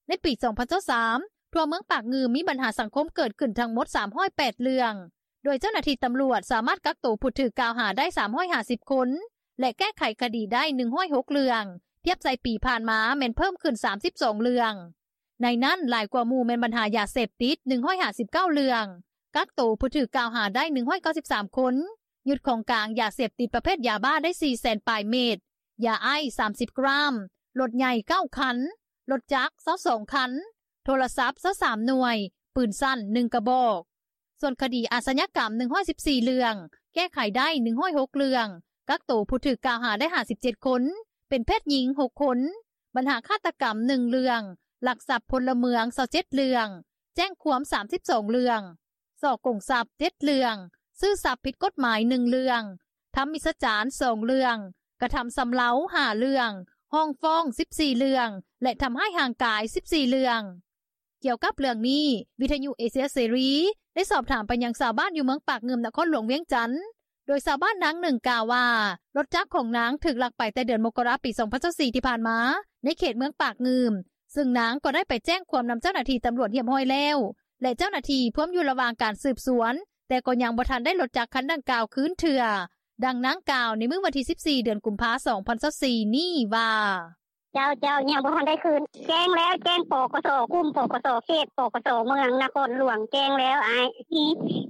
ໃນປີ ສອງພັນຊາວສາມ ທົ່ວເມືອງປາກງື່ມມີບັນຫາສັງຄົມເກີດຂຶ້ນທັງໝົດ ສາມຮ້ອຍແປດເລື່ອງ, ໂດຍເຈົ້າໜ້າທີ່ຕຳຫຼວດສາມາດກັກໂຕຜູ້ຖືກກ່າວຫາໄດ້ ສາມຮ້ອຍຫ້າສິບຄົນ ແລະ ແກ້ໄຂຄະດີໄດ້ ໜຶ່ງຮ້ອຍຫົກເລື່ອງ, ທຽບໃສ່ປີຜ່ານມາແມ່ນເພີ່ມຂຶ້ນ ສາມສິບສອງເລື່ອງ. ໃນນັ້ນ, ຫຼາຍກວ່າໝູ່ແມ່ນບັນຫາຢາເສບຕິດ ໜຶ່ງຮ້ອຍຫ້າສິບເກົ້າເລື່ອງ, ກັກໂຕຜູ້ຖືກກ່າວຫາໄດ້ ໜຶ່ງຮ້ອຍເກົ້າສິບສາມຄົນ, ຍຶດຂອງກາງຢາເສບຕິດປະເພດຢາບ້າໄດ້ ສີ່ແສນປາຍເມັດ, ຢາໄອສ໌ ສາມສິບກຣາມ, ລົດໃຫຍ່ ເກົ້າຄັນ, ລົດຈັກ ຊາວສອງຄັນ, ໂທລະສັບ ຊາວສາມໜ່ວຍ, ປືນສັ້ນ ໜຶ່ງກະບອກ. ສ່ວນຄະດີອາຊະຍາກຳ ໜຶ່ງຮ້ອຍສິບສີ່ເລື່ອງ, ແກ້ໄຂໄດ້ ໜຶ່ງຮ້ອຍຫົກເລື່ອງ, ກັກໂຕຜູ້ຖືກກ່າວຫາໄດ້ ຫ້າສິບເຈັດຄົນ, ເປັນເພດຍິງ ຫົກຄົນ, ບັນຫາຄາດຕະກຳ ໜຶ່ງເລື່ອງ, ລັກຊັບພົນລະເມືອງ ຊາວເຈັດເລື່ອງ, ແຈ້ງຄວາມ ສາມສິບສອງເລື່ອງ, ສໍ້ໂກງຊັບ ເຈັດເລື່ອງ, ຊື້ຊັບຜິດກົດໝາຍ ໜຶ່ງເລື່ອງ, ທຳມິດສະຈານ ສອງເລື່ອງ, ກະທຳຊຳເລົາ ຫ້າເລື່ອງ, ຮ້ອງຟ້ອງ ສິບສີ່ເລື່ອງ ແລະ ທຳຮ້າຍຮ່າງກາຍ ສິບສີ່ເລື່ອງ. ກ່ຽວກັບເລື່ອງນີ້, ວິທະຍຸເອເຊຍເສລີ ໄດ້ສອບຖາມໄປຍັງຊາວບ້ານຢູ່ເມືອງປາກງື່ມ ນະຄອນຫຼວງວຽງຈັນ, ໂດຍຊາວບ້ານນາງໜຶ່ງກ່າວວ່າ ລົດຈັກຂອງນາງຖືກລັກໄປແຕ່ເດືອນມົກກະລາ ປີ ສອງພັນຊາວສີ່ ທີ່ຜ່ານມາ ໃນເຂດເມືອງປາກງື່ມ, ເຊິ່ງນາງກໍໄດ້ໄປແຈ້ງຄວາມນຳເຈົ້າໜ້າທີ່ຕຳຫຼວດຮຽບຮ້ອຍແລ້ວ, ແລະເຈົ້າໜ້າທີ່ພວມຢູ່ລະຫວ່າງການສືບສວນ ແຕ່ກໍຍັງບໍ່ທັນໄດ້ລົດຈັກຄັນດັ່ງກ່າວຄືນເທື່ອ. ດັ່ງນາງກ່າວໃນມື້ວັນທີສິບສີ່ ເດືອນກຸມພາ ສອງພັນຊາວສີ່ນີ້ວ່າ: "ເຈົ້າໆ ຍັງບໍ່ທັນໄດ້ຄືນ ແຈ້ງແລ້ວ ແຈ້ງ ປກສ ກຸ່ມ ປກສ ເຂດ ປກສ ເມືອງນະຄອນຫຼວງ ແຈ້ງແລ້ວອ້າຍ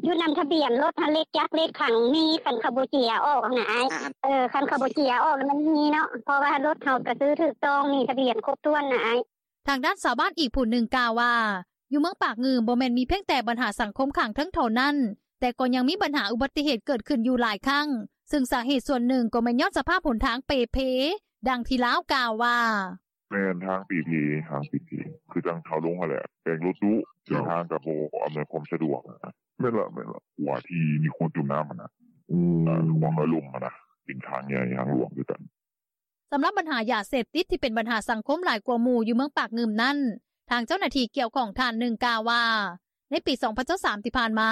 ຢູ່ນຳທະບຽນລົດຫັ້ນ ເລກຈັກ ເລກຂັງມີ ຄັນເຂົາບໍ່ເຈຍອອກຫັ້ນນະອ້າຍ ເອີ ຄັນເຂົາບໍ່ເຈຍອອກມັນມີເນາະ ເພາະວ່າລົດເຮົາກະຊື້ຖືກຕ້ອງ ມີທະບຽນຄົບຖ້ວນນະອ້າຍ." ທາງດ້ານຊາວບ້ານອີກຜູ້ໜຶ່ງກ່າວວ່າ ຢູ່ເມືອງປາກງື່ມບໍ່ແມ່ນມີພຽງແຕ່ບັນຫາສັງຄົມຂ້າງເທິງເທົ່ານັ້ນ ແຕ່ກໍຍັງມີບັນຫາອຸບັດຕິເຫດເກີດຂຶ້ນຢູ່ຫຼາຍຄັ້ງ ຊຶ່ງສາເຫດສ່ວນໜຶ່ງກໍແມ່ນຍ້ອນສະພາບຫົນທາງເປ່ເພ. ດັ່ງທີ່ລາວກ່າວວ່າ: "ແມ່ນ ທາງເປ່ເພ ທາງເປ່ເພ ຄືຈັ່ງເຮົາລົງຫັ້ນແຫຼະ ແຕ່ງລົດດຸ ເສັ້ນທາງກະບໍ່ອຳນວຍຄວາມສະດວກ ແມ່ນລະ ແມ່ນລະ ກວ່າທີ່ມີຄົນຈົມນ້ຳຫັ້ນນະ ຄວາມລະລົມຫັ້ນນະ ເປັນທາງໃຫຍ່ທາງຫຼວງຄືກັນ." ສຳລັບບັນຫາຢາເສບຕິດທີ່ເປັນບັນຫາສັງຄົມຫຼາຍກວ່າໝູ່ຢູ່ເມືອງປາກງື່ມນັ້ນ ທາງເຈົ້າໜ້າທີ່ກ່ຽວຂ້ອງທ່ານໜຶ່ງກ່າວວ່າ ໃນປີສອງພັນຊາວສາມທີ່ຜ່ານມາ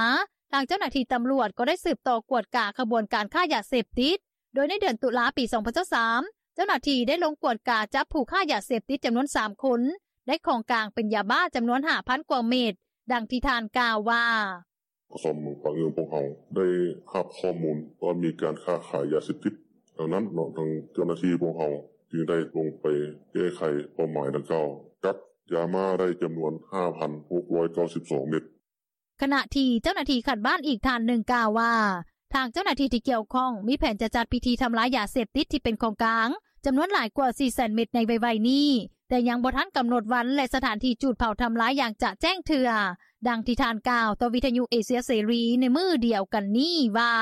ທາງເຈົ້າໜ້າທີ່ຕຳຫຼວດກໍໄດ້ສືບຕໍ່ກວດກາຂະບວນການຄ້າຢາເສບຕິດ ໂດຍໃນເດືອນຕຸລາປີສອງພັນຊາວສາມ ເຈົ້າໜ້າທີ່ໄດ້ລົງກວດກາຈັບຜູ້ຄ້າຢາເສບຕິດຈຳນວນສາມຄົນ ໄດ້ຂອງກາງເປັນຢາບ້າຈຳນວນຫ້າພັນກວ່າເມັດ. ດັ່ງທີ່ທ່ານກ່າວວ່າ: "ປກສ ເມືອງປາກງື່ມພວກເຮົາໄດ້ຮັບຂໍ້ມູນວ່າມີການຄ້າຂາຍຢາເສບຕິດ ດັ່ງນັ້ນເນາະ ທາງເຈົ້າໜ້າທີ່ພວກເຮົາຈຶ່ງໄດ້ລົງໄປແກ້ໄຂເປົ້າໝາຍດັ່ງກ່າວ ຈັບຢາບ້າໄດ້ຈຳນວນຫ້າພັນຫົກຮ້ອຍເກົ້າສິບສອງເມັດ." ຂະນະທີ່ເຈົ້າໜ້າທີ່ຂັ້ນບ້ານອີກທ່ານໜຶ່ງກ່າວວ່າ ທາງເຈົ້າໜ້າທີ່ທີ່ກ່ຽວຂ້ອງມີແຜນຈະຈັດພິທີທຳລາຍຢາເສບຕິດທີ່ເປັນຂອງກາງ ຈຳນວນຫຼາຍກວ່າສີ່ແສນເມັດໃນໄວໆນີ້ ແຕ່ຍັງບໍ່ທັນກຳນົດວັນ ແລະ ສະຖານທີ່ຈູດເຜົາທຳລາຍຢ່າງຈະແຈ້ງເທື່ອ. ດັ່ງທີ່ທ່ານກ່າວຕໍ່ວິທະຍຸເອເຊຍເສລີໃນມື້ດຽວກັນນີ້ວ່າ: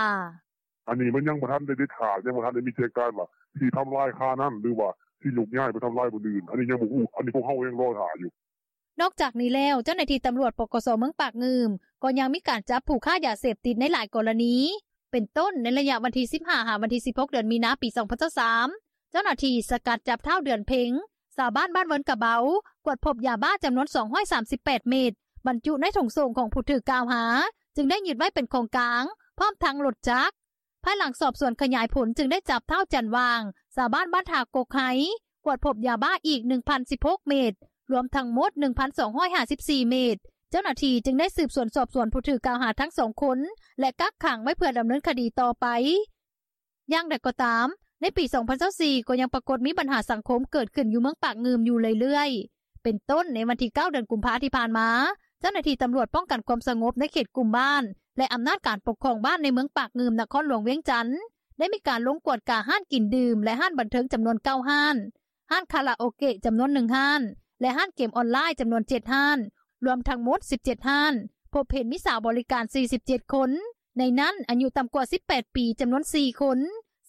"ອັນນີ້ມັນຍັງບໍ່ທັນໄດ້ເດັດຂາດ ຍັງບໍ່ທັນໄດ້ມີແຈ້ງການວ່າຊິທຳລາຍຄານັ້ນ ຫຼືວ່າຊິຍົກຍ້າຍໄປທຳລາຍບ່ອນອື່ນ ອັນນີ້ຍັງບໍ່ຮູ້ ອັນນີ້ພວກເຮົາຍັງລໍຖ້າຢູ່." ນອກຈາກນີ້ແລ້ວ ເຈົ້າໜ້າທີ່ຕຳຫຼວດ ປກສ ເມືອງປາກງື່ມ ກໍຍັງມີການຈັບຜູ້ຄ້າຢາເສບຕິດໃນຫຼາຍກໍລະນີ ເປັນຕົ້ນ ໃນໄລຍະວັນທີສິບຫ້າ ຫາວັນທີສິບຫົກ ເດືອນມີນາ ປີສອງພັນຊາວສາມ ເຈົ້າໜ້າທີ່ສະກັດຈັບທ້າວ ເດືອນເພັງ ຊາວບ້ານບ້ານເວີນກະເບົາ ກວດພົບຢາບ້າຈຳນວນສອງຮ້ອຍສາມສິບແປດເມັດ ບັນຈຸໃນຖົງໂສ້ງຂອງຜູ້ຖືກກ່າວຫາ ຈຶ່ງໄດ້ຍຶດໄວ້ເປັນຂອງກາງ ພ້ອມທັງລົດຈັກ. ພາຍຫຼັງສອບສວນຂະຫຍາຍຜົນຈຶ່ງໄດ້ຈັບທ້າວ ຈັນຫວ່າງ ຊາວບ້ານບ້ານທ່າກົກໄຮ ກວດພົບຢາບ້າອີກໜຶ່ງພັນສິບຫົກເມັດ ລວມທັງໝົດໜຶ່ງພັນສອງຮ້ອຍຫ້າສິບສີ່ເມັດ. ເຈົ້າໜ້າທີ່ຈຶ່ງໄດ້ສືບສວນສອບສວນຜູ້ຖືກກ່າວຫາທັງສອງຄົນ ແລະ ກັກຂັງໄວ້ເພື່ອດຳເນີນຄະດີຕໍ່ໄປ. ຢ່າງໃດກໍຕາມ ໃນປີສອງພັນຊາວສີ່ ກໍຍັງປາກົດມີບັນຫາສັງຄົມເກີດຂຶ້ນຢູ່ເມືອງປາກງື່ມຢູ່ເລື້ອຍໆ ເປັນຕົ້ນ ໃນວັນທີເກົ້າ ເດືອນກຸມພາທີ່ຜ່ານມາ ເຈົ້າໜ້າທີ່ຕຳຫຼວດປ້ອງກັນຄວາມສະຫງົບໃນເຂດກຸ່ມບ້ານ ແລະ ອຳນາດການປົກຄອງບ້ານໃນເມືອງປາກງື່ມ ນະຄອນຫຼວງວຽງຈັນ ໄດ້ມີການລົງກວດກາຮ້ານກິນດື່ມ ແລະ ຮ້ານບັນເທີງຈຳນວນເກົ້າຮ້ານ, ຮ້ານຄາຣາໂອເກະຈຳນວນໜຶ່ງຮ້ານ ແລະ ຮ້ານເກມອອນລາຍຈຳນວນເຈັດຮ້ານ ລວມທັງໝົດສິບເຈັດຮ້ານ, ພົບເຫັນມີສາວບໍລິການສີ່ສິບເຈັດຄົນ ໃນນັ້ນອາຍຸຕ່ຳກວ່າສິບແປດປີຈຳນວນສີ່ຄົນ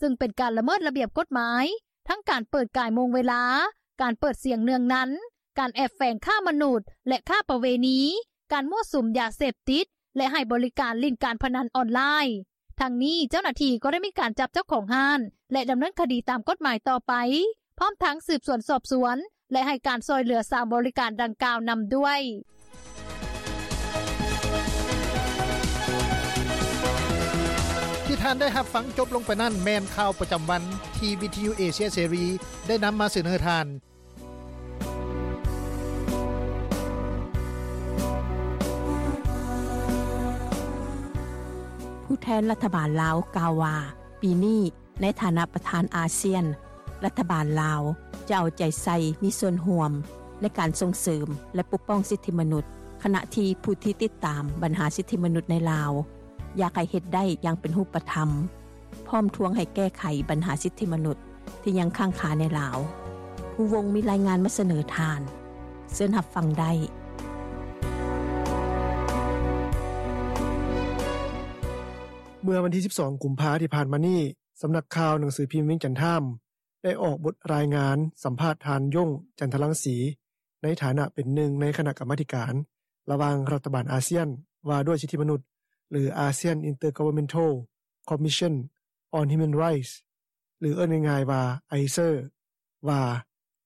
ຊຶ່ງເປັນການລະເມີດລະບຽບກົດໝາຍ ທັງການເປີດກາຍໂມງເວລາ, ການເປີດສຽງເນືອງນັນ, ການແອບແຝງຄ້າມະນຸດ ແລະ ຄ້າປະເວນີ, ການມົ້ວສຸມຢາເສບຕິດ ແລະ ໃຫ້ບໍລິການຫຼິ້ນການພະນັນອອນລາຍ. ທັງນີ້ເຈົ້າໜ້າທີ່ກໍໄດ້ມີການຈັບເຈົ້າຂອງຮ້ານ ແລະ ດຳເນີນຄະດີຕາມກົດໝາຍຕໍ່ໄປ ພ້ອມທັງສືບສວນສອບສວນ ແລະ ໃຫ້ການຊ່ອຍເຫຼືອສາວບໍລິການດັ່ງກ່າວນຳດ້ວຍ. ທີ່ທ່ານໄດ້ຮັບຟັງຈົບລົງໄປນັ້ນ ແມ່ນຂ່າວປະຈຳວັນທີ່ວິທະຍຸເອເຊຍເສລີໄດ້ນຳມາສະເໜີທ່ານ. ຜູ້ແທນລັດຖະບານລາວກ່າວວ່າ ປີນີ້ໃນຖານະປະທານອາຊຽນ ລັດຖະບານລາວຈະເອົາໃຈໃສ່ມີສ່ວນຮ່ວມໃນການສົ່ງເສີມ ແລະ ປົກປ້ອງສິດທິມະນຸດ, ຂະນະທີ່ຜູ້ທີ່ຕິດຕາມບັນຫາສິດທິມະນຸດໃນລາວ ຢາກໃຫ້ເຮັດໄດ້ຢ່າງເປັນຮູບປະທຳ ພ້ອມທວງໃຫ້ແກ້ໄຂບັນຫາສິດທິມະນຸດທີ່ຍັງຄ້າງຄາໃນລາວ. ພູວົງມີລາຍງານມາສະເໜີທ່ານ. ເຊີນຮັບຟັງໄດ້. ເມື່ອວັນທີສິບສອງ ກຸມພາທີ່ຜ່ານມານີ້, ສຳນັກຂ່າວໜັງສືພິມວຽງຈັນທາມ ໄດ້ອອກບົດລາຍງານສຳພາດທ່ານ ຢົງ ຈັນທະລັງສີ ໃນຖານະເປັນໜຶ່ງໃນຄະນະກຳມາທິການລະຫວ່າງລັດຖະບານອາຊຽນວ່າດ້ວຍສິດທິມະນຸດ ຫຼື ASEAN Intergovernmental Commission on Human Rights ຫຼື ເອີ້ນງ່າຍໆວ່າ ไอเซอร์ ວ່າ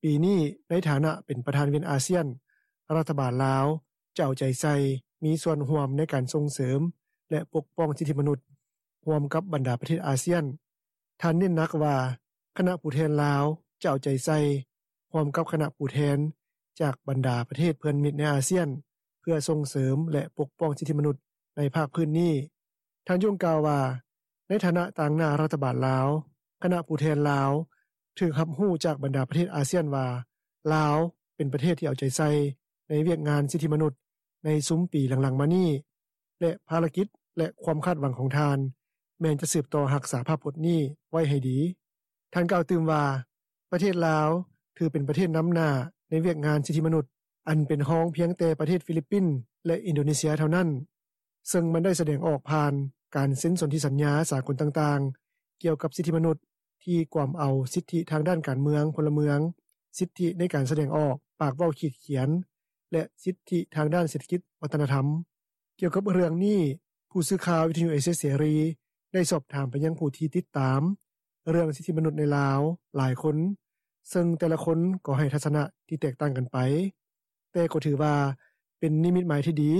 ປີນີ້ໃນຖານະເປັນປະທານວຽນອາຊຽນ, ລັດຖະບານລາວຈະເອົາໃຈໃສ່ມີສ່ວນຮ່ວມໃນການສົ່ງເສີມ ແລະ ປົກປ້ອງສິດທິມະນຸດ ຮ່ວມກັບບັນດາປະເທດອາຊຽນ. ທ່ານເນັ້ນໜັກວ່າ ຄະນະຜູ້ແທນລາວຈະເອົາໃຈໃສ່ຮ່ວມກັບຄະນະຜູ້ແທນຈາກບັນດາປະເທດເພື່ອນມິດໃນອາຊຽນ ເພື່ອສົ່ງເສີມ ແລະ ປົກປ້ອງສິດທິມະນຸດໃນພາກພື້ນນີ້. ທ່ານຍົງກ່າວວ່າ ໃນຖານະຕາງໜ້າລັດຖະບານລາວ, ຄະນະຜູ້ແທນລາວ ຖືກຮັບຮູ້ຈາກບັນດາປະເທດອາຊຽນວ່າ ລາວເປັນປະເທດທີ່ເອົາໃຈໃສ່ໃນວຽກງານສິດທິມະນຸດໃນຊຸມປີຫຼັງໆມານີ້ ແລະ ພາລະກິດ ແລະ ຄວາມຄາດຫວັງຂອງທ່ານ ແມ່ນຈະສືບຕໍ່ຮັກສາພາບພົດນີ້ໄວ້ໃຫ້ດີ. ທ່ານກ່າວຕື່ມວ່າ ປະເທດລາວຖືເປັນປະເທດນຳໜ້າໃນວຽກງານສິດທິມະນຸດ ອັນເປັນຮອງພຽງແຕ່ປະເທດຟີລິບປິນ ແລະ ອິນໂດເນເຊຍເທົ່ານັ້ນ, ເຊິ່ງມັນໄດ້ສະແດງອອກຜ່ານການເຊັນສົນທິສັນຍາສາກົນຕ່າງໆ ກ່ຽວກັບສິດທິມະນຸດ ທີ່ກວມເອົາສິດທິທາງດ້ານການເມືອງ, ພົນລະເມືອງ, ສິດທິໃນການສະແດງອອກ, ປາກເວົ້າ, ຂີດຂຽນ ແລະ ສິດທິທາງດ້ານເສດຖະກິດວັດທະນະທຳ. ກ່ຽວກັບເລື່ອງນີ້, ຜູ້ສື່ຂ່າວວິທະຍຸເອເຊຍເສລີໄດ້ສອບຖາມໄປຍັງຜູ້ທີ່ຕິດຕາມເລື່ອງສິດທິມະນຸດໃນລາວຫຼາຍຄົນ, ເຊິ່ງແຕ່ລະຄົນກໍໃຫ້ທັດສະນະທີ່ແຕກຕ່າງກັນໄປ, ແຕ່ກໍຖືວ່າເປັນນິມິດໝາຍທີ່ດີ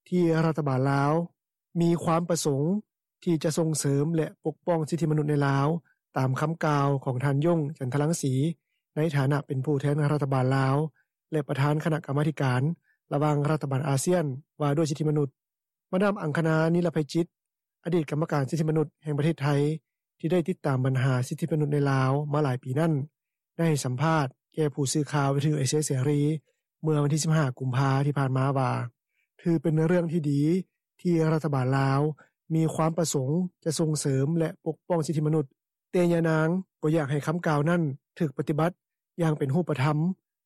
ທີ່ລັດຖະບານລາວມີຄວາມປະສົງທີ່ຈະສົ່ງເສີມ ແລະ ປົກປ້ອງສິດທິມະນຸດໃນລາວ, ຕາມຄຳກ່າວຂອງທ່ານ ຢົງ ຈັນທະລັງສີ ໃນຖານະເປັນຜູ້ແທນລັດຖະບານລາວ ແລະ ປະທານຄະນະກຳມາທິການລະຫວ່າງລັດຖະບານອາຊຽນວ່າດ້ວຍສິດທິມະນຸດ. ມາດາມ ອັງຄະນາ ນິລະໄພຈິດ ອະດີດກຳມະການສິດທິມະນຸດແຫ່ງປະເທດໄທ ທີ່ໄດ້ຕິດຕາມບັນຫາສິດທິມະນຸດໃນລາວມາຫຼາຍປີນັ້ນ ໄດ້ໃຫ້ສຳພາດແກ່ຜູ້ສື່ຂ່າວວິທະຍຸເອເຊຍເສລີ ເມື່ອວັນທີສິບຫ້າ ກຸມພາ ທີ່ຜ່ານມາວ່າ ຖືເປັນເລື່ອງທີ່ດີທີ່ລັດຖະບານລາວມີຄວາມປະສົງຈະສົ່ງເສີມ ແລະ ປົກປ້ອງສິດທິມະນຸດ, ແຕ່ຍານາງກໍຢາກໃຫ້ຄຳກ່າວນັ້ນຖືກປະຕິບັດຢ່າງເປັນຮູບປະທຳ,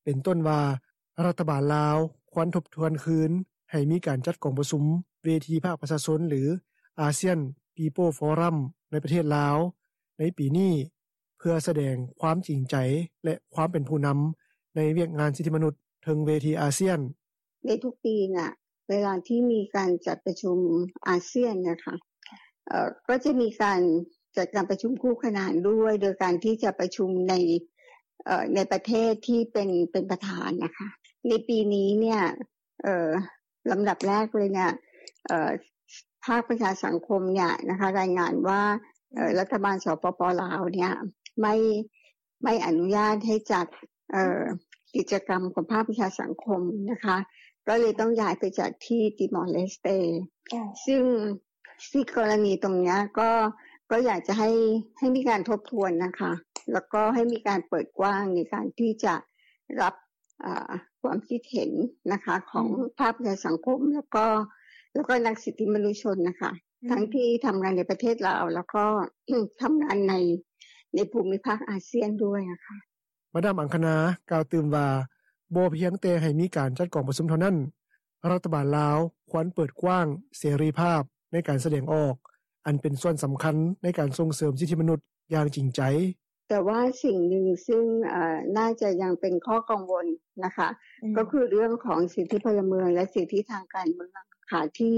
ເປັນຕົ້ນວ່າ ລັດຖະບານລາວຄວນທົບທວນຄືນໃຫ້ມີການຈັດກອງປະຊຸມເວທີພາກປະຊາຊົນ ຫຼື ASEAN People Forum ໃນປະເທດລາວໃນປີນີ້ ເພື່ອສະແດງຄວາມຈິງໃຈ ແລະ ຄວາມເປັນຜູ້ນຳໃນວຽກງານສິດທິມະນຸດເທິງເວທີອາຊຽນ. ໃນທຸກປີນະ ເວລາທີ່ມີການຈັດປະຊຸມອາຊຽນນະຄະ ເອີ ກໍຈະມີການຈັດການປະຊຸມຄູ່ຂະນານດ້ວຍ ໂດຍການທີ່ຈະປະຊຸມໃນ ເອີ ໃນປະເທດທີ່ເປັນ ເປັນປະທານນະຄະ. ໃນປີນີ້ເນຍ ເອີ ລຳດັບແລກເລີຍເນຍ ເອີ ພາກປະຊາສັງຄົມເນຍນະຄະ ລາຍງານວ່າ ເອີ ລັດຖະບານ ສປປ ລາວ ເນຍ ໄມ່ ໄມ່ອະນຸຍາດໃຫ້ຈັດ ເອີ ກິດຈະກຳຂອງພາກປະຊາສັງຄົມນະຄະ ກໍເລີຍຕ້ອງຍ້າຍໄປຈັດທີ່ຕິມອລເລສເຕ ເຈົ້າ ຊຶ່ງ ຊຶ່ງກໍລະນີຕົງເນຍ ກໍ ກໍຢາກຈະໃຫ້ ໃຫ້ມີການທົບທວນນະຄະ ແລ້ວກໍໃຫ້ມີການເປີດກວ້າງໃນການທີ່ຈະຮັບ ເອີ ຄວາມຄິດເຫັນນະຄະ ຂອງ ອືມ ພາກປະຊາສັງຄົມ ແລ້ວກໍ ແລ້ວກໍນັກສິດທິມະນຸດຊົນນະຄະ ອືມ ທັງທີ່ທຳງານໃນປະເທດລາວ ແລ້ວກໍ ທຳງານໃນ ໃນພູມິພາກອາຊຽນດ້ວຍນະຄະ. ມາດາມ ອັງຄະນາ ກ່າວຕື່ມວ່າ ບໍ່ພຽງແຕ່ໃຫ້ມີການຈັດກອງປະຊຸມເທົ່ານັ້ນ, ລັດຖະບານລາວຄວນເປີດກວ້າງເສລີພາບໃນການສະແດງອອກ ອັນເປັນສ່ວນສຳຄັນໃນການສົ່ງເສີມສິດທິມະນຸດຢ່າງຈິງໃຈ. ແຕ່ວ່າສິ່ງໜຶ່ງຊຶ່ງ ເອີ ໜ້າຈະຍັງເປັນຂໍ້ກັງວົນນະຄະ ອືມ ກໍຄືເລື່ອງຂອງສິດທິພົນລະເມືອງ ແລະ ສິດທິທາງການເມືອງນະຄະ ທີ່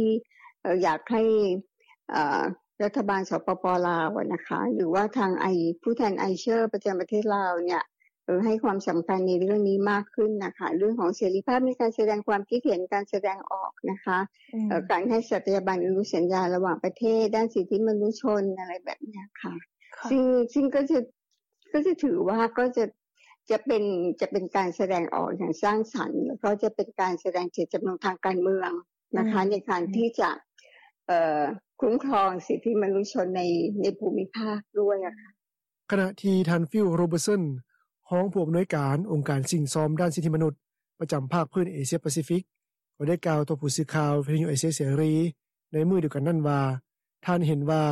ເອີ ຢາກໃຫ້ ເອີ ລັດຖະບານ ສປປ ລາວ ນະຄະ ຫຼືວ່າທາງ ໄອ ຜູ້ແທນ ໄອເຊີ ປະຈຳປະເທດລາວເນຍ ເອີ ໃຫ້ຄວາມສຳຄັນໃນເລື່ອງນີ້ມາກຂຶ້ນນະຄະ ເລື່ອງຂອງເສລີພາບໃນການສະແດງຄວາມຄິດເຫັນ, ການສະແດງອອກນະຄະ ອືມ ເອີ ການໃຫ້ສັດຕະຍາບັນອະນຸສັນຍາລະຫວ່າງປະເທດດ້ານສິດທິມະນຸດຊົນ ອະໄລແບບເນີ້ຍຄ່ະ ຄ່ະ ຊຶ່ງ ຊຶ່ງກໍຈະ ກໍຈະຖືວ່າ ກໍຈະ ຈະເປັນ ຈະເປັນການສະແດງອອກຢ່າງສ້າງສັນ ແລ້ວກໍຈະເປັນການສະແດງເຈດຈຳນົງທາງການເມືອງນະຄະ ອືມ ໃນການທີ່ຈະ ເອີ ຄຸ້ມຄອງສິດທິມະນຸດຊົນໃນ ໃນພູມິພາກດ້ວຍອະຄ່ະ. ຂະນະທີ່ທ່ານ ຟິວ ໂຣເບີດສັນ ຮອງຜູ້ອຳນວຍການອົງການສິ້ງຊອມດ້ານສິດທິມະນຸດປະຈຳພາກພື້ນເອເຊຍປາຊີຟິກ ກໍໄດ້ກ່າວຕໍ່ຜູ້ສື່ຂ່າວວິທະຍຸເອເຊຍເສລີໃນມື້ດຽວກັນນັ້ນວ່າ ທ່ານເຫັນວ່າ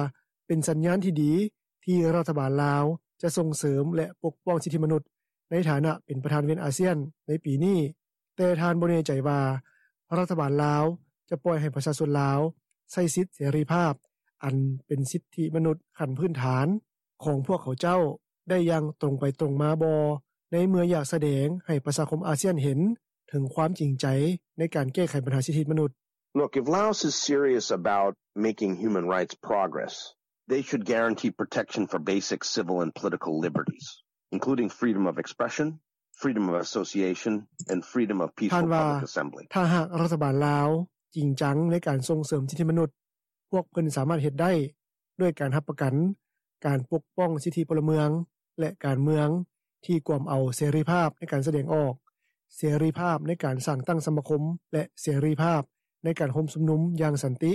ເປັນສັນຍານທີ່ດີທີ່ລັດຖະບານລາວຈະສົ່ງເສີມ ແລະ ປົກປ້ອງສິດທິມະນຸດໃນຖານະເປັນປະທານວຽນອາຊຽນໃນປີນີ້, ແຕ່ທ່ານບໍ່ແນ່ໃຈວ່າລັດຖະບານລາວຈະປ່ອຍໃຫ້ປະຊາຊົນລາວໃຊ້ສິດເສລີພາບ ອັນເປັນສິດທິມະນຸດຂັ້ນພື້ນຖານຂອງພວກເຂົາເຈົ້າໄດ້ຢ່າງຕົງໄປຕົງມາບໍ່ ໃນເມື່ອຢາກສະແດງໃຫ້ປະຊາຄົມອາຊຽນເຫັນເຖິງຄວາມຈິງໃຈໃນການແກ້ໄຂບັນຫາສິດທິມະນຸດ. Look, if Laos is serious about making human rights progress, they should guarantee protection for basic civil and political liberties, including freedom of expression, freedom of association, and freedom of peaceful public assembly. ທ່ານວ່າ ຖ້າຫາກລັດຖະບານລາວຈິງຈັງໃນການສົ່ງເສີມສິດທິມະນຸດ, ພວກເພິ່ນສາມາດເຮັດໄດ້ດ້ວຍການຮັບປະກັນການປົກປ້ອງສິດທິພົນລະເມືອງ ແລະ ການເມືອງທີ່ກວມເອົາເສລີພາບໃນການສະແດງອອກ, ເສລີພາບໃນການສ້າງຕັ້ງສະມາຄົມ ແລະ ເສລີພາບໃນການໂຮມຊຸມນຸມຢ່າງສັນຕິ.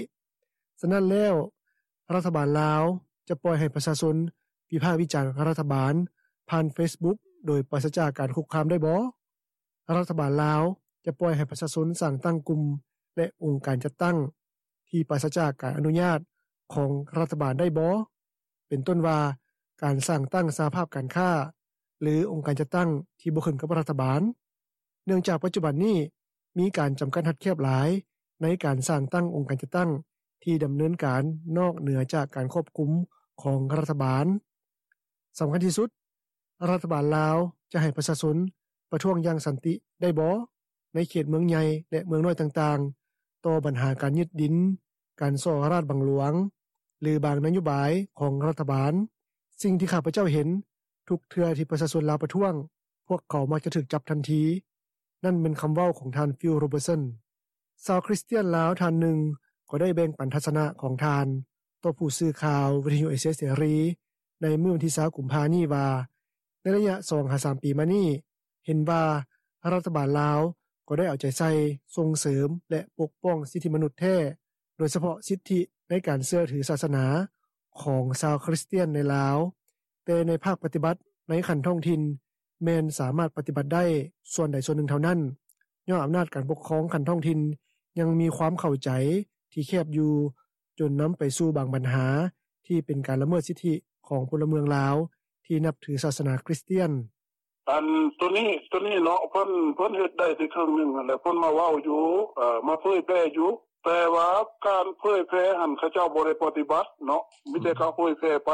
ສະນັ້ນແລ້ວ, ລັດຖະບານລາວຈະປ່ອຍໃຫ້ປະຊາຊົນວິພາກວິຈານລັດຖະບານຜ່ານເຟສບຸກໂດຍປາສະຈາກການຄຸກຄາມໄດ້ບໍ່? ລັດຖະບານລາວຈະປ່ອຍໃຫ້ປະຊາຊົນສ້າງຕັ້ງກຸ່ມ ແລະ ອົງການຈັດຕັ້ງທີ່ປາສະຈາກການອະນຸຍາດຂອງລັດຖະບານໄດ້ບໍ່? ເປັນຕົ້ນວ່າ ການສ້າງຕັ້ງສະຫະພາບການຄ້າ ຫຼື ອົງການຈັດຕັ້ງທີ່ບໍ່ຂຶ້ນກັບລັດຖະບານ. ເນື່ອງຈາກປັດຈຸບັນນີ້ ມີການຈຳກັດຮັດແຄບຫຼາຍໃນການສ້າງຕັ້ງອົງການຈັດຕັ້ງທີ່ດຳເນີນການນອກເໜືອຈາກການຄວບຄຸມຂອງລັດຖະບານ. ສຳຄັນທີ່ສຸດ, ລັດຖະບານລາວຈະໃຫ້ປະຊາຊົນປະທ້ວງຢ່າງສັນຕິໄດ້ບໍ່ ໃນເຂດເມືອງໃຫຍ່ ແລະ ເມືອງນ້ອຍຕ່າງໆ ຕໍ່ບັນຫາການຍຶດດິນ, ການສໍ້ລາດບັງຫຼວງ ຫຼື ບາງນະໂຍບາຍຂອງລັດຖະບານ. ສິ່ງທີ່ຂ້າພະເຈົ້າເຫັນ, ທຸກເທື່ອທີ່ປະຊາຊົນລາວປະທ້ວງ, ພວກເຂົາມັກຈະຖືກຈັບທັນທີ. ນັ້ນແມ່ນຄຳເວົ້າຂອງທ່ານ ຟິລ ໂຣເບີດສັນ. ຊາວຄຣິສຕຽນລາວທ່ານໜຶ່ງກໍໄດ້ແບ່ງປັນທັດສະນະຂອງທ່ານຕໍ່ຜູ້ສື່ຂ່າວວິທະຍຸເອເຊຍເສລີໃນມື້ວັນທີຊາວກຸມພານີ້ວ່າ ໃນໄລຍະສອງຫາສາມປີມານີ້ ເຫັນວ່າລັດຖະບານລາວກໍໄດ້ເອົາໃຈໃສ່ສົ່ງເສີມ ແລະ ປົກປ້ອງສິດທິມະນຸດແທ້, ໂດຍສະເພາະສິດທິໃນການເຊື່ອຖືສາສະໜາຂອງຊາວຄຣິສຕຽນໃນລາວ, ແຕ່ໃນພາກປະຕິບັດໃນຂັ້ນທ້ອງຖິ່ນ ແມ່ນສາມາດປະຕິບັດໄດ້ສ່ວນໃດສ່ວນໜຶ່ງເທົ່ານັ້ນ, ຍ້ອນອຳນາດການປົກຄອງຂັ້ນທ້ອງຖິ່ນຍັງມີຄວາມເຂົ້າໃຈທີ່ແຄບຢູ່, ຈົນນຳໄປສູ່ບາງບັນຫາທີ່ເປັນການລະເມີດສິດທິຂອງພົນລະເມືອງລາວທີ່ນັບຖືສາສະໜາຄຣິສຕຽນ. ອັນໂຕນີ້ ໂຕນີ້ເນາະ ເພິ່ນ ເພິ່ນເຮັດໄດ້ແຕ່ເຄິ່ງໜຶ່ງຫັ້ນແຫຼະ ເພິ່ນມາເວົ້າຢູ່ ເອີ ມາເຜີຍແຜ່ຢູ່ ແຕ່ວ່າການເຜີຍແຜ່ຫັ້ນ ເຂົາເຈົ້າບໍ່ໄດ້ປະຕິບັດເນາະ ມີແຕ່ເຂົາເຜີຍແຜ່ໄປ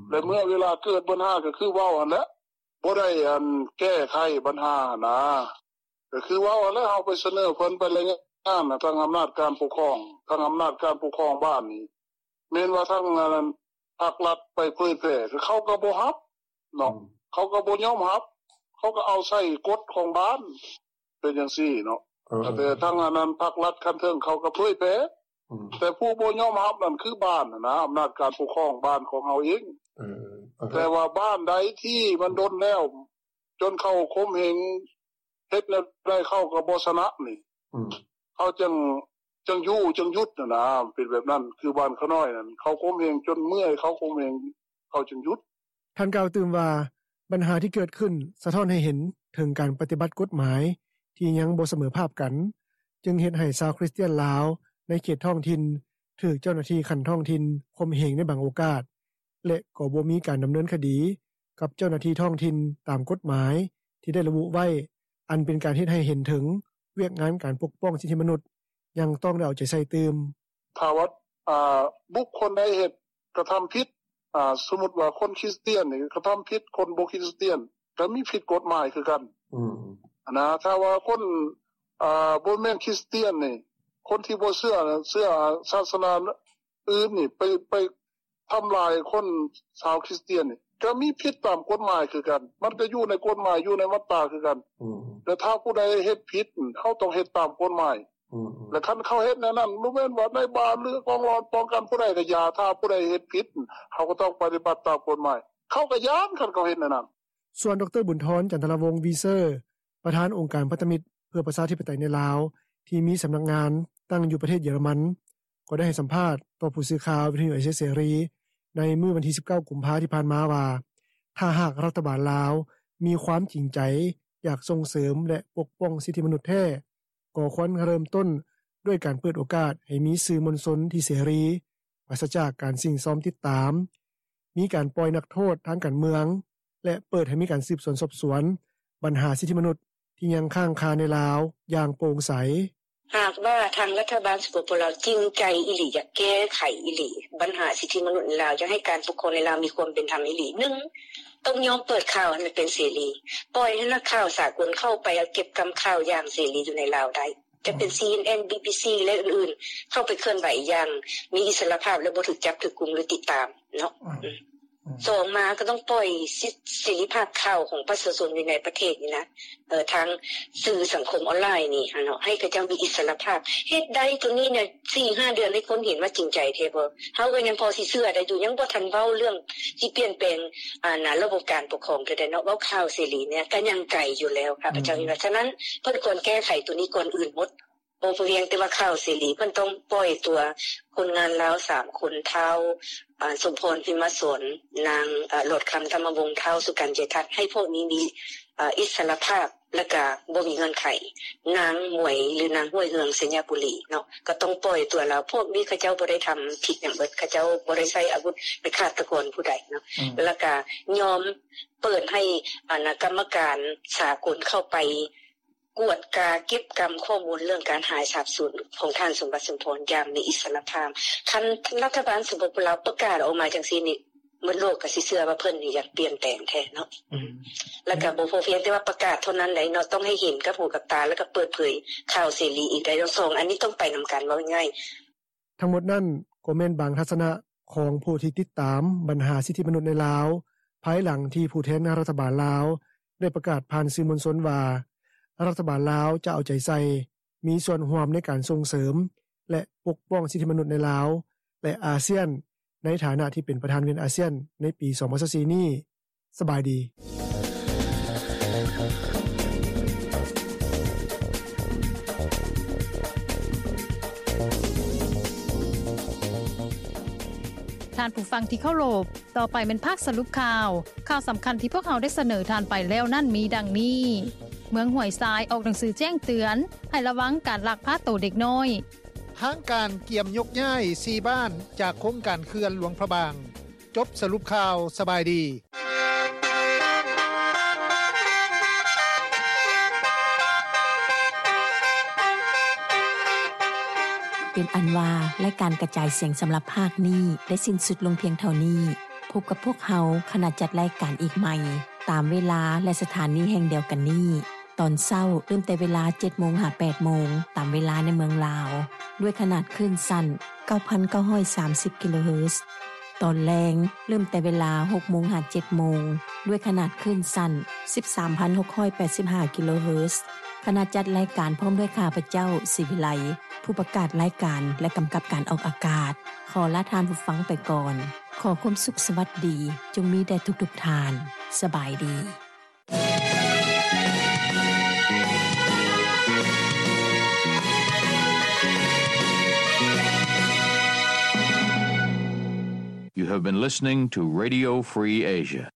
ແລະ ເມື່ອເວລາເກີດບັນຫາກໍຄືເວົ້າຫັ້ນແຫຼະ ບໍ່ໄດ້ອັນແກ້ໄຂບັນຫາຫັ້ນນະ ກໍຄືເວົ້າຫັ້ນແຫຼະ ເຮົາໄປສະເໜີເພິ່ນ ໄປລາຍງານນະ ທາງອຳນາດການປົກຄອງ ທາງອຳນາດການປົກຄອງບ້ານນີ້ ແມ່ນວ່າທາງອັນນັ້ນ ພາກລັດໄປເຜີຍແຜ່ ເຂົາກໍບໍ່ຮັບເນາະ ເຂົາກໍບໍ່ຍອມຮັບ ເຂົາກໍເອົາໃສ່ກົດຂອງບ້ານ ເປັນຈັ່ງຊີ້ເນາະ ເອີ ແຕ່ທາງອັນນັ້ນ ພາກລັດຂັ້ນເທິງເຂົາກໍເຜີຍແຜ່ ແຕ່ຜູ້ບໍ່ຍອມຮັບນັ້ນຄືບ້ານຫັ້ນນະ ອຳນາດການປົກຄອງບ້ານຂອງເຮົາເອງ ເອີ ແຕ່ວ່າບ້ານໃດທີ່ມັນດົນແລ້ວ ຈົນເຂົາຂົ່ມເຫງ ເຮັດແນວໃດເຂົາກໍບໍ່ຊະນະນີ້ ເຂົາຈັ່ງ ຈັ່ງຢູ່ຈັ່ງຢຸດຫັ້ນນະ ເປັນແບບນັ້ນ ຄືບ້ານຂະນ້ອຍນັ້ນ ເຂົາຂົ່ມເຫງຈົນເມື່ອຍ ເຂົາຂົ່ມເຫງ ເຂົາຈຶ່ງຢຸດ. ທ່ານກ່າວຕື່ມວ່າ ບັນຫາທີ່ເກີດຂຶ້ນສະທ້ອນໃຫ້ເຫັນເຖິງການປະຕິບັດກົດໝາຍທີ່ຍັງບໍ່ສະເໝີພາບກັນ ຈຶ່ງເຮັດໃຫ້ຊາວຄຣິສຕຽນລາວໃນເຂດທ້ອງຖິ່ນ ຖືກເຈົ້າໜ້າທີ່ຂັ້ນທ້ອງຖິ່ນຂົ່ມເຫງໃນບາງໂອກາດ ແລະ ກໍບໍ່ມີການດຳເນີນຄະດີກັບເຈົ້າໜ້າທີ່ທ້ອງຖິ່ນຕາມກົດໝາຍທີ່ໄດ້ລະບຸໄວ້ ອັນເປັນການເຮັດໃຫ້ເຫັນເຖິງວຽກງານການປົກປ້ອງສິດທິມະນຸດຍັງຕ້ອງໄດ້ເອົາໃຈໃສ່ຕື່ມ. ຖ້າວ່າ ອາ ບຸກຄົນໃດເຮັດ ກະທຳຜິດ ອາ ສົມມຸດວ່າຄົນຄຣິສຕຽນນີ້ກະທຳຜິດ ຄົນບໍ່ຄຣິສຕຽນກະມີຜິດກົດໝາຍຄືກັນ ອືມ ຫັ້ນນະ ຖ້າວ່າຄົນ ອາ ບໍ່ແມ່ນຄຣິສຕຽນນີ້ ຄົນທີ່ບໍ່ເຊື່ອ ເຊື່ອສາສະໜາ ອື່ນນີ້ໄປ ໄປທຳລາຍຄົນຊາວຄຣິສຕຽນນີ້ ກໍມີຜິດຕາມກົດໝາຍຄືກັນ ມັນກໍຢູ່ໃນກົດໝາຍ ຢູ່ໃນມາດຕາຄືກັນ ແລະ ຖ້າຜູ້ໃດເຮັດຜິດ ເຮົາຕ້ອງເຮັດຕາມກົດໝາຍ ແລະ ຄັນເຂົາເຮັດແນວນັ້ນ ບໍ່ແມ່ນວ່ານາຍບ້ານ ຫຼື ກອງຫຼອນປ້ອງກັນຜູ້ໃດກໍຢ່າ ຖ້າຜູ້ໃດເຮັດຜິດ ເຮົາກໍຕ້ອງປະຕິບັດຕາມກົດໝາຍ ເຂົາກໍຢ້ານ ຄັນເຂົາເຮັດແນວນັ້ນ. ສ່ວນ ດຣ. ບຸນທອນ ຈັນທະລາວົງ ວີເຊີ ປະທານອົງການພັນທະມິດເພື່ອປະຊາທິປະໄຕໃນລາວ ທີ່ມີສຳນັກງານຕັ້ງຢູ່ປະເທດເຢຍລະມັນ ກໍໄດ້ໃຫ້ສຳພາດຕໍ່ຜູ້ສື່ຂ່າວວິທະຍຸເອເຊຍເສລີໃນມື້ວັນທີສິບເກົ້າ ກຸມພາທີ່ຜ່ານມາວ່າ ຖ້າຫາກລັດຖະບານລາວມີຄວາມຈິງໃຈຢາກສົ່ງເສີມ ແລະ ປົກປ້ອງສິດທິມະນຸດແທ້ ກໍຄວນເລີ່ມຕົ້ນດ້ວຍການເປີດໂອກາດໃຫ້ມີສື່ມວນຊົນທີ່ເສລີ ປາສະຈາກການສິ້ງຊອມຕິດຕາມ, ມີການປ່ອຍນັກໂທດທາງການເມືອງ ແລະ ເປີດໃຫ້ມີການສືບສວນສອບສວນບັນຫາສິດທິມະນຸດທີ່ຍັງຄ້າງຄາໃນລາວຢ່າງໂປ່ງໃສ. ຫາກວ່າທາງລັດຖະບານ ສປປ ລາວ ຈິງໃຈອີ່ຫຼີ ຢາກແກ້ໄຂອີ່ຫຼີບັນຫາສິດທິມະນຸດໃນລາວ ຢາກໃຫ້ການປົກຄອງໃນລາວມີຄວາມເປັນທຳອີ່ຫຼີ ໜຶ່ງ ຕ້ອງຍອມເປີດຂ່າວໃຫ້ມັນເປັນເສລີ ປ່ອຍໃຫ້ນັກຂ່າວສາກົນເຂົ້າໄປເກັບກຳຂ່າວຢ່າງເສລີຢູ່ໃນລາວໄດ້ ຈະເປັນ ຊີເອັນເອັນ ບີບີຊີ ແລະ ອື່ນໆ ເຂົ້າໄປເຄື່ອນໄຫວຢ່າງມີອິດສະຫຼະພາບ ແລະ ບໍ່ຖືກຈັບ ຖືກກຸມ ຫຼື ຕິດຕາມເນາະ. ສອງມາກໍຕ້ອງປ່ອຍສິດເສລີພາບຂ່າວຂອງປະຊາຊົນຢູ່ໃນປະເທດນີ້ນະ ເອີ ທາງສື່ສັງຄົມອອນລາຍນີ້ຫັ້ນເນາະ ໃຫ້ເຂົາເຈົ້າມີອິດສະຫຼະພາບ. ເຮັດໄດ້ໂຕນີ້ນະ ສີ່ຫ້າເດືອນໃຫ້ຄົນເຫັນວ່າຈິງໃຈແທ້ບໍ່? ເຮົາກໍຍັງພໍຊິເຊື່ອໄດ້ຢູ່ ຍັງບໍ່ທັນເວົ້າເລື່ອງຊິປ່ຽນແປງ ອັນນະ ລະບົບການປົກຄອງເທື່ອໃດເນາະ ເວົ້າຂ່າວເສລີນີ້ກໍຍັງໄກຢູ່ແລ້ວ ຂ້າພະເຈົ້າຄິດວ່າ. ສະນັ້ນເພິ່ນຄວນແກ້ໄຂໂຕນີ້ກ່ອນອື່ນໝົດ. ບໍ່ພຽງແຕ່ວ່າຂ່າວເສລີ ເພິ່ນຕ້ອງປ່ອຍຕົວຄົນງານລາວສາມຄົນ ທ້າວ ອາ ສົມພອນ ພິມມະສອນ ນາງ ອາ ຫຼອດຄຳ ທຳມະວົງ ທ້າວ ສຸກັນ ເຈດທັດ ໃຫ້ພວກນີ້ມີ ອາ ອິດສະຫຼະພາບ ແລະກະບໍ່ມີເງື່ອນໄຂ. ນາງໝວຍ ຫຼື ນາງຫ້ວຍເຮືອງ ໄຊຍະບູລີເນາະ ກໍຕ້ອງປ່ອຍຕົວລາວ. ພວກນີ້ເຂົາເຈົ້າບໍ່ໄດ້ທຳຜິດຫຍັງເບິດ ເຂົາເຈົ້າບໍ່ໄດ້ໃຊ້ອາວຸດ ເປັນຄາດຕະກອນຜູ້ໃດເນາະ ອືມ ແລະກະຍອມເປີດໃຫ້ ອັນນະ ກຳມະການສາກົນເຂົ້າໄປ ກວດກາເກັບກຳຂໍ້ມູນເລື່ອງການຫາຍສາບສູນຂອງທ່ານ ສົມບັດ ສົມພອນ ຢ່າງມີອິດສະຫຼະພາບ. ຄັນລັດຖະບານ ສປປ ລາວ ປະກາດອອກມາຈັ່ງຊີ້ນີ້ ໝົດໂລກກໍຊິເຊື່ອວ່າເພິ່ນນີ້ຢາກປ່ຽນແປງແທ້ເນາະ ອືມ ແລ້ວກໍບໍ່ພໍພຽງແຕ່ວ່າປະກາດເທົ່ານັ້ນໃດເນາະ ຕ້ອງໃຫ້ເຫັນກັບຫູກັບຕາ ແລ້ວກໍເປີດເຜີຍຂ່າວເສລີອີກໄດ້. ສອງອັນນີ້ຕ້ອງໄປນຳກັນ ເວົ້າງ່າຍໆ. ທັງໝົດນັ້ນກໍແມ່ນບາງທັດສະນະຂອງຜູ້ທີ່ຕິດຕາມບັນຫາສິດທິມະນຸດໃນລາວ ພາຍຫຼັງທີ່ຜູ້ແທນລັດຖະບານລາວໄດ້ປະກາດຜ່ານສື່ມວນຊົນວ່າ ລັດຖະບານລາວຈະເອົາໃຈໃສ່ ມີສ່ວນຮ່ວມໃນການສົ່ງເສີມ ແລະ ປົກປ້ອງສິດທິມະນຸດໃນລາວ ແລະ ອາຊຽນ ໃນຖານະທີ່ເປັນປະທານວຽນອາຊຽນໃນປີສອງພັນຊາວສີ່ນີ້. ສະບາຍດີ. ທ່ານຜູ້ຟັງທີ່ເຄົາລົບ, ຕໍ່ໄປແມ່ນພາກສະຫຼຸບຂ່າວ. ຂ່າວສຳຄັນທີ່ພວກເຮົາໄດ້ສະເໜີທ່ານໄປແລ້ວນັ້ນມີດັ່ງນີ້: ເມືອງຫ້ວຍຊາຍອອກໜັງສືແຈ້ງເຕືອນໃຫ້ລະວັງການລັກພາໂຕເດັກນ້ອຍ. ທາງການກຽມຍົກຍ້າຍສີ່ບ້ານຈາກໂຄງການເຂື່ອນຫຼວງພະບາງ. ຈົບສະຫຼຸບຂ່າວ. ສະບາຍດີ. ເປັນອັນວ່າ ລາຍການກະຈາຍສຽງສຳລັບພາກນີ້ໄດ້ສິ້ນສຸດລົງພຽງເທົ່ານີ້. ພົບກັບພວກເຮົາ ຄະນະຈັດລາຍການອີກໃໝ່ ຕາມເວລາ ແລະ ສະຖານີແຫ່ງດຽວກັນນີ້ ຕອນເຊົ້າເລີ່ມແຕ່ເວລາເຈັດໂມງຫາແປດໂມງ ຕາມເວລາໃນເມືອງລາວ ດ້ວຍຂະໜາດຄື້ນສັ້ນເກົ້າພັນເກົ້າຮ້ອຍສາມສິບກິໂລເຮີດ. ຕອນແລງເລີ່ມແຕ່ເວລາຫົກໂມງຫາເຈັດໂມງ ດ້ວຍຂະໜາດຄື້ນສັ້ນສິບສາມພັນຫົກຮ້ອຍແປດສິບຫ້າກິໂລເຮີດ. ຄະນະຈັດລາຍການພ້ອມດ້ວຍຂ້າພະເຈົ້າ ສີວິໄລ ຜູ້ປະກາດລາຍການ ແລະ ກຳກັບການອອກອາກາດ ຂໍລາທ່ານຜູ້ຟັງໄປກ່ອນ. ຂໍຄວາມສຸກສະຫວັດດີຈົ່ງມີແດ່ທຸກໆທ່ານ. ສະບາຍດີ. You have been listening to Radio Free Asia.